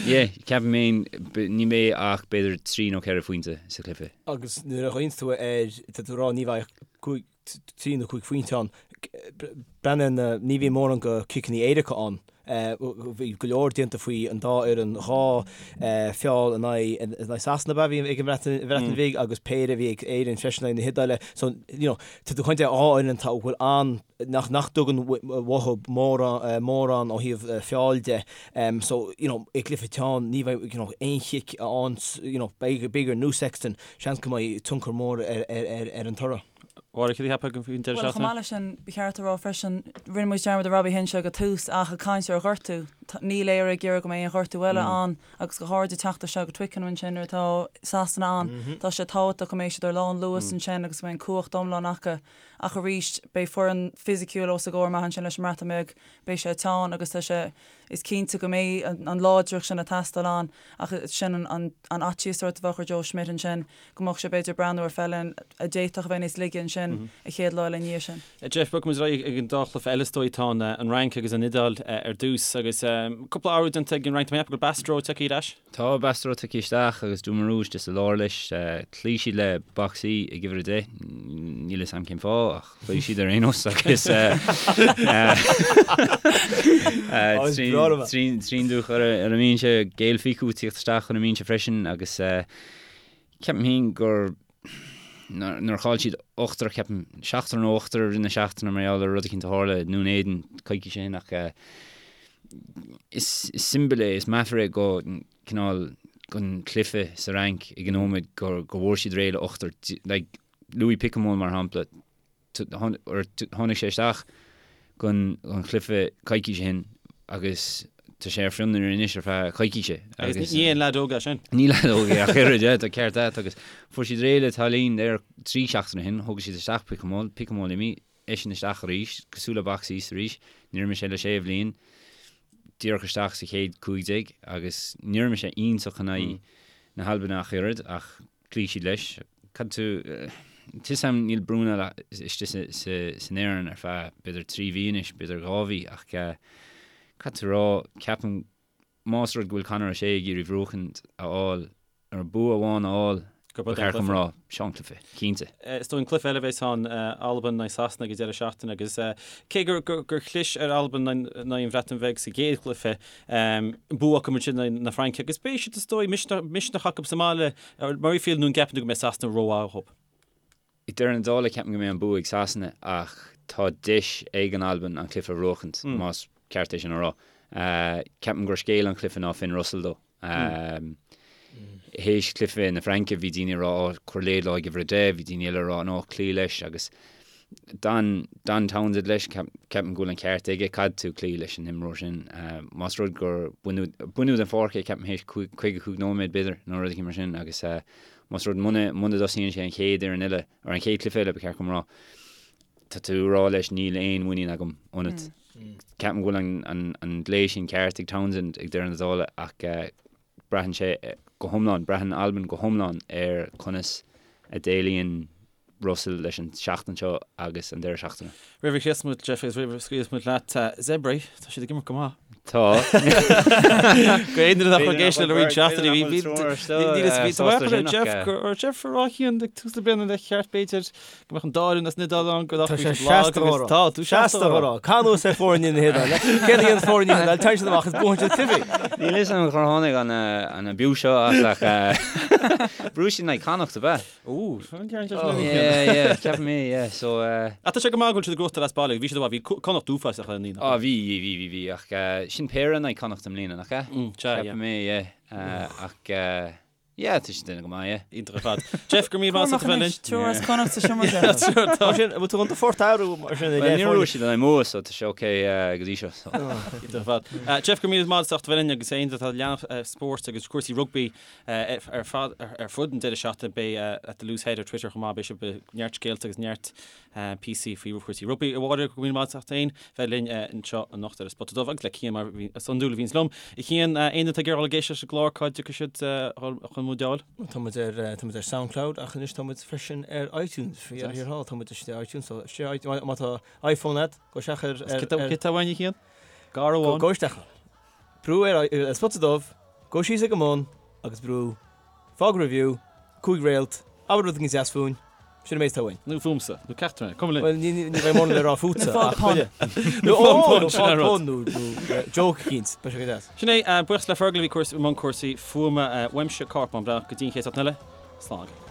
yeah, ceapaim féin ní bheidh ach b'fhéidir 3 nó 4 phointe sa chluiche. Agus nuair a ghlaonns tú air, tá tú ag rá ní bheidh ach 5, 3 nó 5 phointe ann. Breathnaigh na, ní bhíonn mórán go ciceanna éirice ann. Bhí go leor déanta faoi an dá fhoireann, dhá feall in aghaidh Sasana ab ea a bhí ag an Bhreatain Bhig agus péire a bhí ag Éirinn freisin in aghaidh na hIodáile. So, you know, tá tú ag caint ar dhá fhoireann atá, a bhfuil an, nach, nach dtugann uathu mórán ó thaobh feall de. So, you know, i gcluiche teann ní bheidh, you know, aon chic ann, you know, b'fhéidir nó Sexton, seans go mbeidh tionchar mór ar an toradh. Máire, cad a cheapfá faoin deireadh Bhuel, chomh seachtaine? maith leis sin, ba cheart a rá freisin, rinne muid dearmad ar Robbie Henshaw ag an tús ach ag caint ar ghortú, níl Éire ag iarraidh go mbeidh aon ghortú eile ann agus go háirid ag teacht isteach go Twickenham ansin nuair atá Sasana ann, tá sé tábhachtach go mbeidh siad ar lán luas ansin agus go mbeidh an cumhacht iomlán acu. Ach arís, beidh foireann fisiciúil os a gcomhair amach ansin leis an mBreatain Bheag, beidh sé teann agus tá sé, Is cinnte go mbeidh an láidreacht sin ag teastáil ann ach sin an fhaitíos sórt a bheadh ar Joe Schmidt ansin, go mbeadh sé b'fhéidir ag breathnú ar foireann a d'fhéadfadh a bheith níos laige ansin an chéad lá eile i ndiaidh sin. Jeff, bogfaidh muid ar aghaidh ag an dá chluiche eile is dóigh. Tá an Fhrainc agus an Iodáil ar dtús agus cúpla athrú déanta ag an Fhrainc. Tá mé ag ceapadh go bhfuil Bastareaud tagtha ar ais. Tá Bastareaud tagtha isteach agus Dumarus istigh sa lár leis. Chloígh siad le Boxy ag uimhir 10. Níl fhios a'm cén fáth ach. Chloígh siad ar aon nós agus Trinh-Duc ar an mbinse, Gaël Fickou ag tíocht isteach chun an mbinse freisin agus ceapaim féin gur nuair a chaill siad ochtar, ceapaim, seachtar nó ochtar i rith na seachtaine mar gheall ar rud eicínt a tharla i nDún Éideann coicís ó shin ach is siombail é, is meafar é go cineál gon chluiche sa Fhrainc ag an nóiméad go bhfuair siad réidh le ochtar, like, Louis Picamoles mar shampla, tháinig sé isteach gon chluiche coicís ó shin agus tá sé ar fionraí anois ar feadh coicíse. Agus ní aon leaid óg é sin. Ní leaid óg é ach oiread, yeah, tá ceart agat agus fuair siad réidh le Tallyn there 3 seachtaine ó shin, thóg siad isteach Picamoles, Picamoles imithe, eisean isteach arís, cosúil le Beauxis arís, níor imir sé le sé bhliain, díreach isteach sa chéad 15 agus níor imir sé iontach in aghaidh na hAlban ach oiread ach Chloígh siad leis. Cad tú, tá 'fhios a'm níl Brunel istigh san fhoireann ar feadh b'fhéidir 3 mhí anois, b'fhéidir 2 mhí ach caithfidh tú a rá, ceapaim más rud go bhfuil Conor O'Shea ag iarraidh buachaint a fháil, nó bua amháin a fháil, ba cheart dom rá, seo an cluiche, cinnte. Is dóigh an cluiche eile a bheas ann, Albain in aghaidh Sasana ag an deireadh seachtaine agus cé gur chlis ar Albain in aghaidh an Bhreatain Bheag sa gcéad chluiche, Bua acu ansin in aghaidh na Fraince agus beidh siad is dóigh misneach acu sa mbaile ar Murrayfield nó an gceapann tú go mbeidh Sasana rómhaith dhóibh? I deireadh na dála ceapaim go mbeidh an bua ag Sasana ach tá deis ag an Albain an cluiche a bhuachaint, más ceart é sin a rá. Ceapaim gur scéal an chluiche ná Finn Russell dó. Théis cluiche na Fraince bhí daoine ag rá oh cuir Laidlaw ag uimhir 10, bhí daoine eile ag rá no cloígh leis agus d'fhan d'fhan Townsend leis, ceapaim go bhfuil an ceart aige, caithfidh tú cloí leis an imreoir sin. Más rud gur baineadh baineadh den pháirc é ceapaim théis 55 nóiméad b'fhéidir nó rud éigin mar sin agus más rud muna muna dtosaíonn sé an chéad fhoireann eile, or an chéad cluiche eile ba cheart dom rá, tá tú ag rá leis níl aon mhuinín agam ionat. Ceapaim go bhfuil an glao sin ceart ag Townsend ag deireadh na dála ach braitheann sé go hiomlán, braitheann Albain go hiomlán ar conas a dhéileálann Russell leis an seachtain seo agus an deireadh seachtaine. Roimh a chríochnós muid, Jeff, agus roimh a scaoilfeas muid leat, Zebre, tá siad ag imirt go maith. Tá. Go aon duine nach raibh ag éisteacht le roinnt seachtainí, bhí bhí bhí Jeff gur Jeff a rá Cian ag tús na bliana le cheart b'fhéidir go mbeadh an dá fhoireann as an Iodáil ann go Tá sé seasta á rá. Tá, tú seasta á rá. Cá nós ar foirne na hIodáile? Céard a dhéanann foirne na hIodáile? Téann siad amach is buann siad cluichí. Níl fhios agam cár tháinig an an abuse seo as ach bhuaigh siad in aghaidh Connacht ab ea? Ó, an ceann seo sin Yeah, yeah, ceapaim é, yeah, so. Ach tá sé go maith go bhfuil siad ag gnóthachtáil as baile, bhí siad, bhí Connacht uafásach le naoi. Á, bhí, bhí, bhí, bhí, ach sin péire in aghaidh Connacht i mbliana, nach ea? Mm, sea, yeah. Ceapaim é, yeah, ach yeah, tá siad ag déanamh go maith, yeah. Iontach ar fad. Jeff, go raibh míle maith agat as ucht a bheith linn. Triúr as Connacht sa seomra seo. Tá sin, bhfuil tú chun do phort a athrú mar sin i leith Níor bhuaigh siad in aghaidh Mumha, so tá sé ok go dtí seo. Iontach ar fad. Jeff, go raibh míle maith agat as ucht a bheith linn agus aon duine atá ag leanacht spóirt agus cúrsaí rugbaí Ar fad ar fud an deireadh seachtaine beidh at the Loose Head ar Twitter chomh maith, beidh sibh ag neart scéalta agus neart píosaí faoi chúrsaí rugbaí. A Mháire, go raibh míle maith agat as ucht féin bheith linn anseo anocht ar an Spota Dubh agus le Cian mar is iondúil a bhíonns liom. A Chian, aon duine atá ag iarraidh dul ag éisteacht leis an gclár cá dtiocfaidh siad chun muid a fháil? Tá muid ar tá muid ar Soundcloud ach anois tá muid freisin ar iTunes. Faoi dheireadh thiar thall tá muid istigh ar iTunes so istigh má tá iPhone agat gabh isteach ar Cé tá uainn a Chian? Gar amháin. Gabh isteach ann. Brú ar an Spota Dubh, gabh síos ag an mbun agus brú Fág Review, 5 réalt, abair rud éigin deas fúinn, sin an méid atá uainn. Nó fúmsa, nó ceachtar againn, cuma linn. Bhuel, ní bheidh mórán le rá fútsa, ach chuile. Nó fág pun, sin an rud. Nó fág pun, nó joke eicínt, beidh sé go deas. Sin é, buíochas le Fergal a bhí i mbun cúrsaí fuaime, uaimse Cárthach Bán Breathnach, go dtí an chéad seachtain eile, slán agaibh.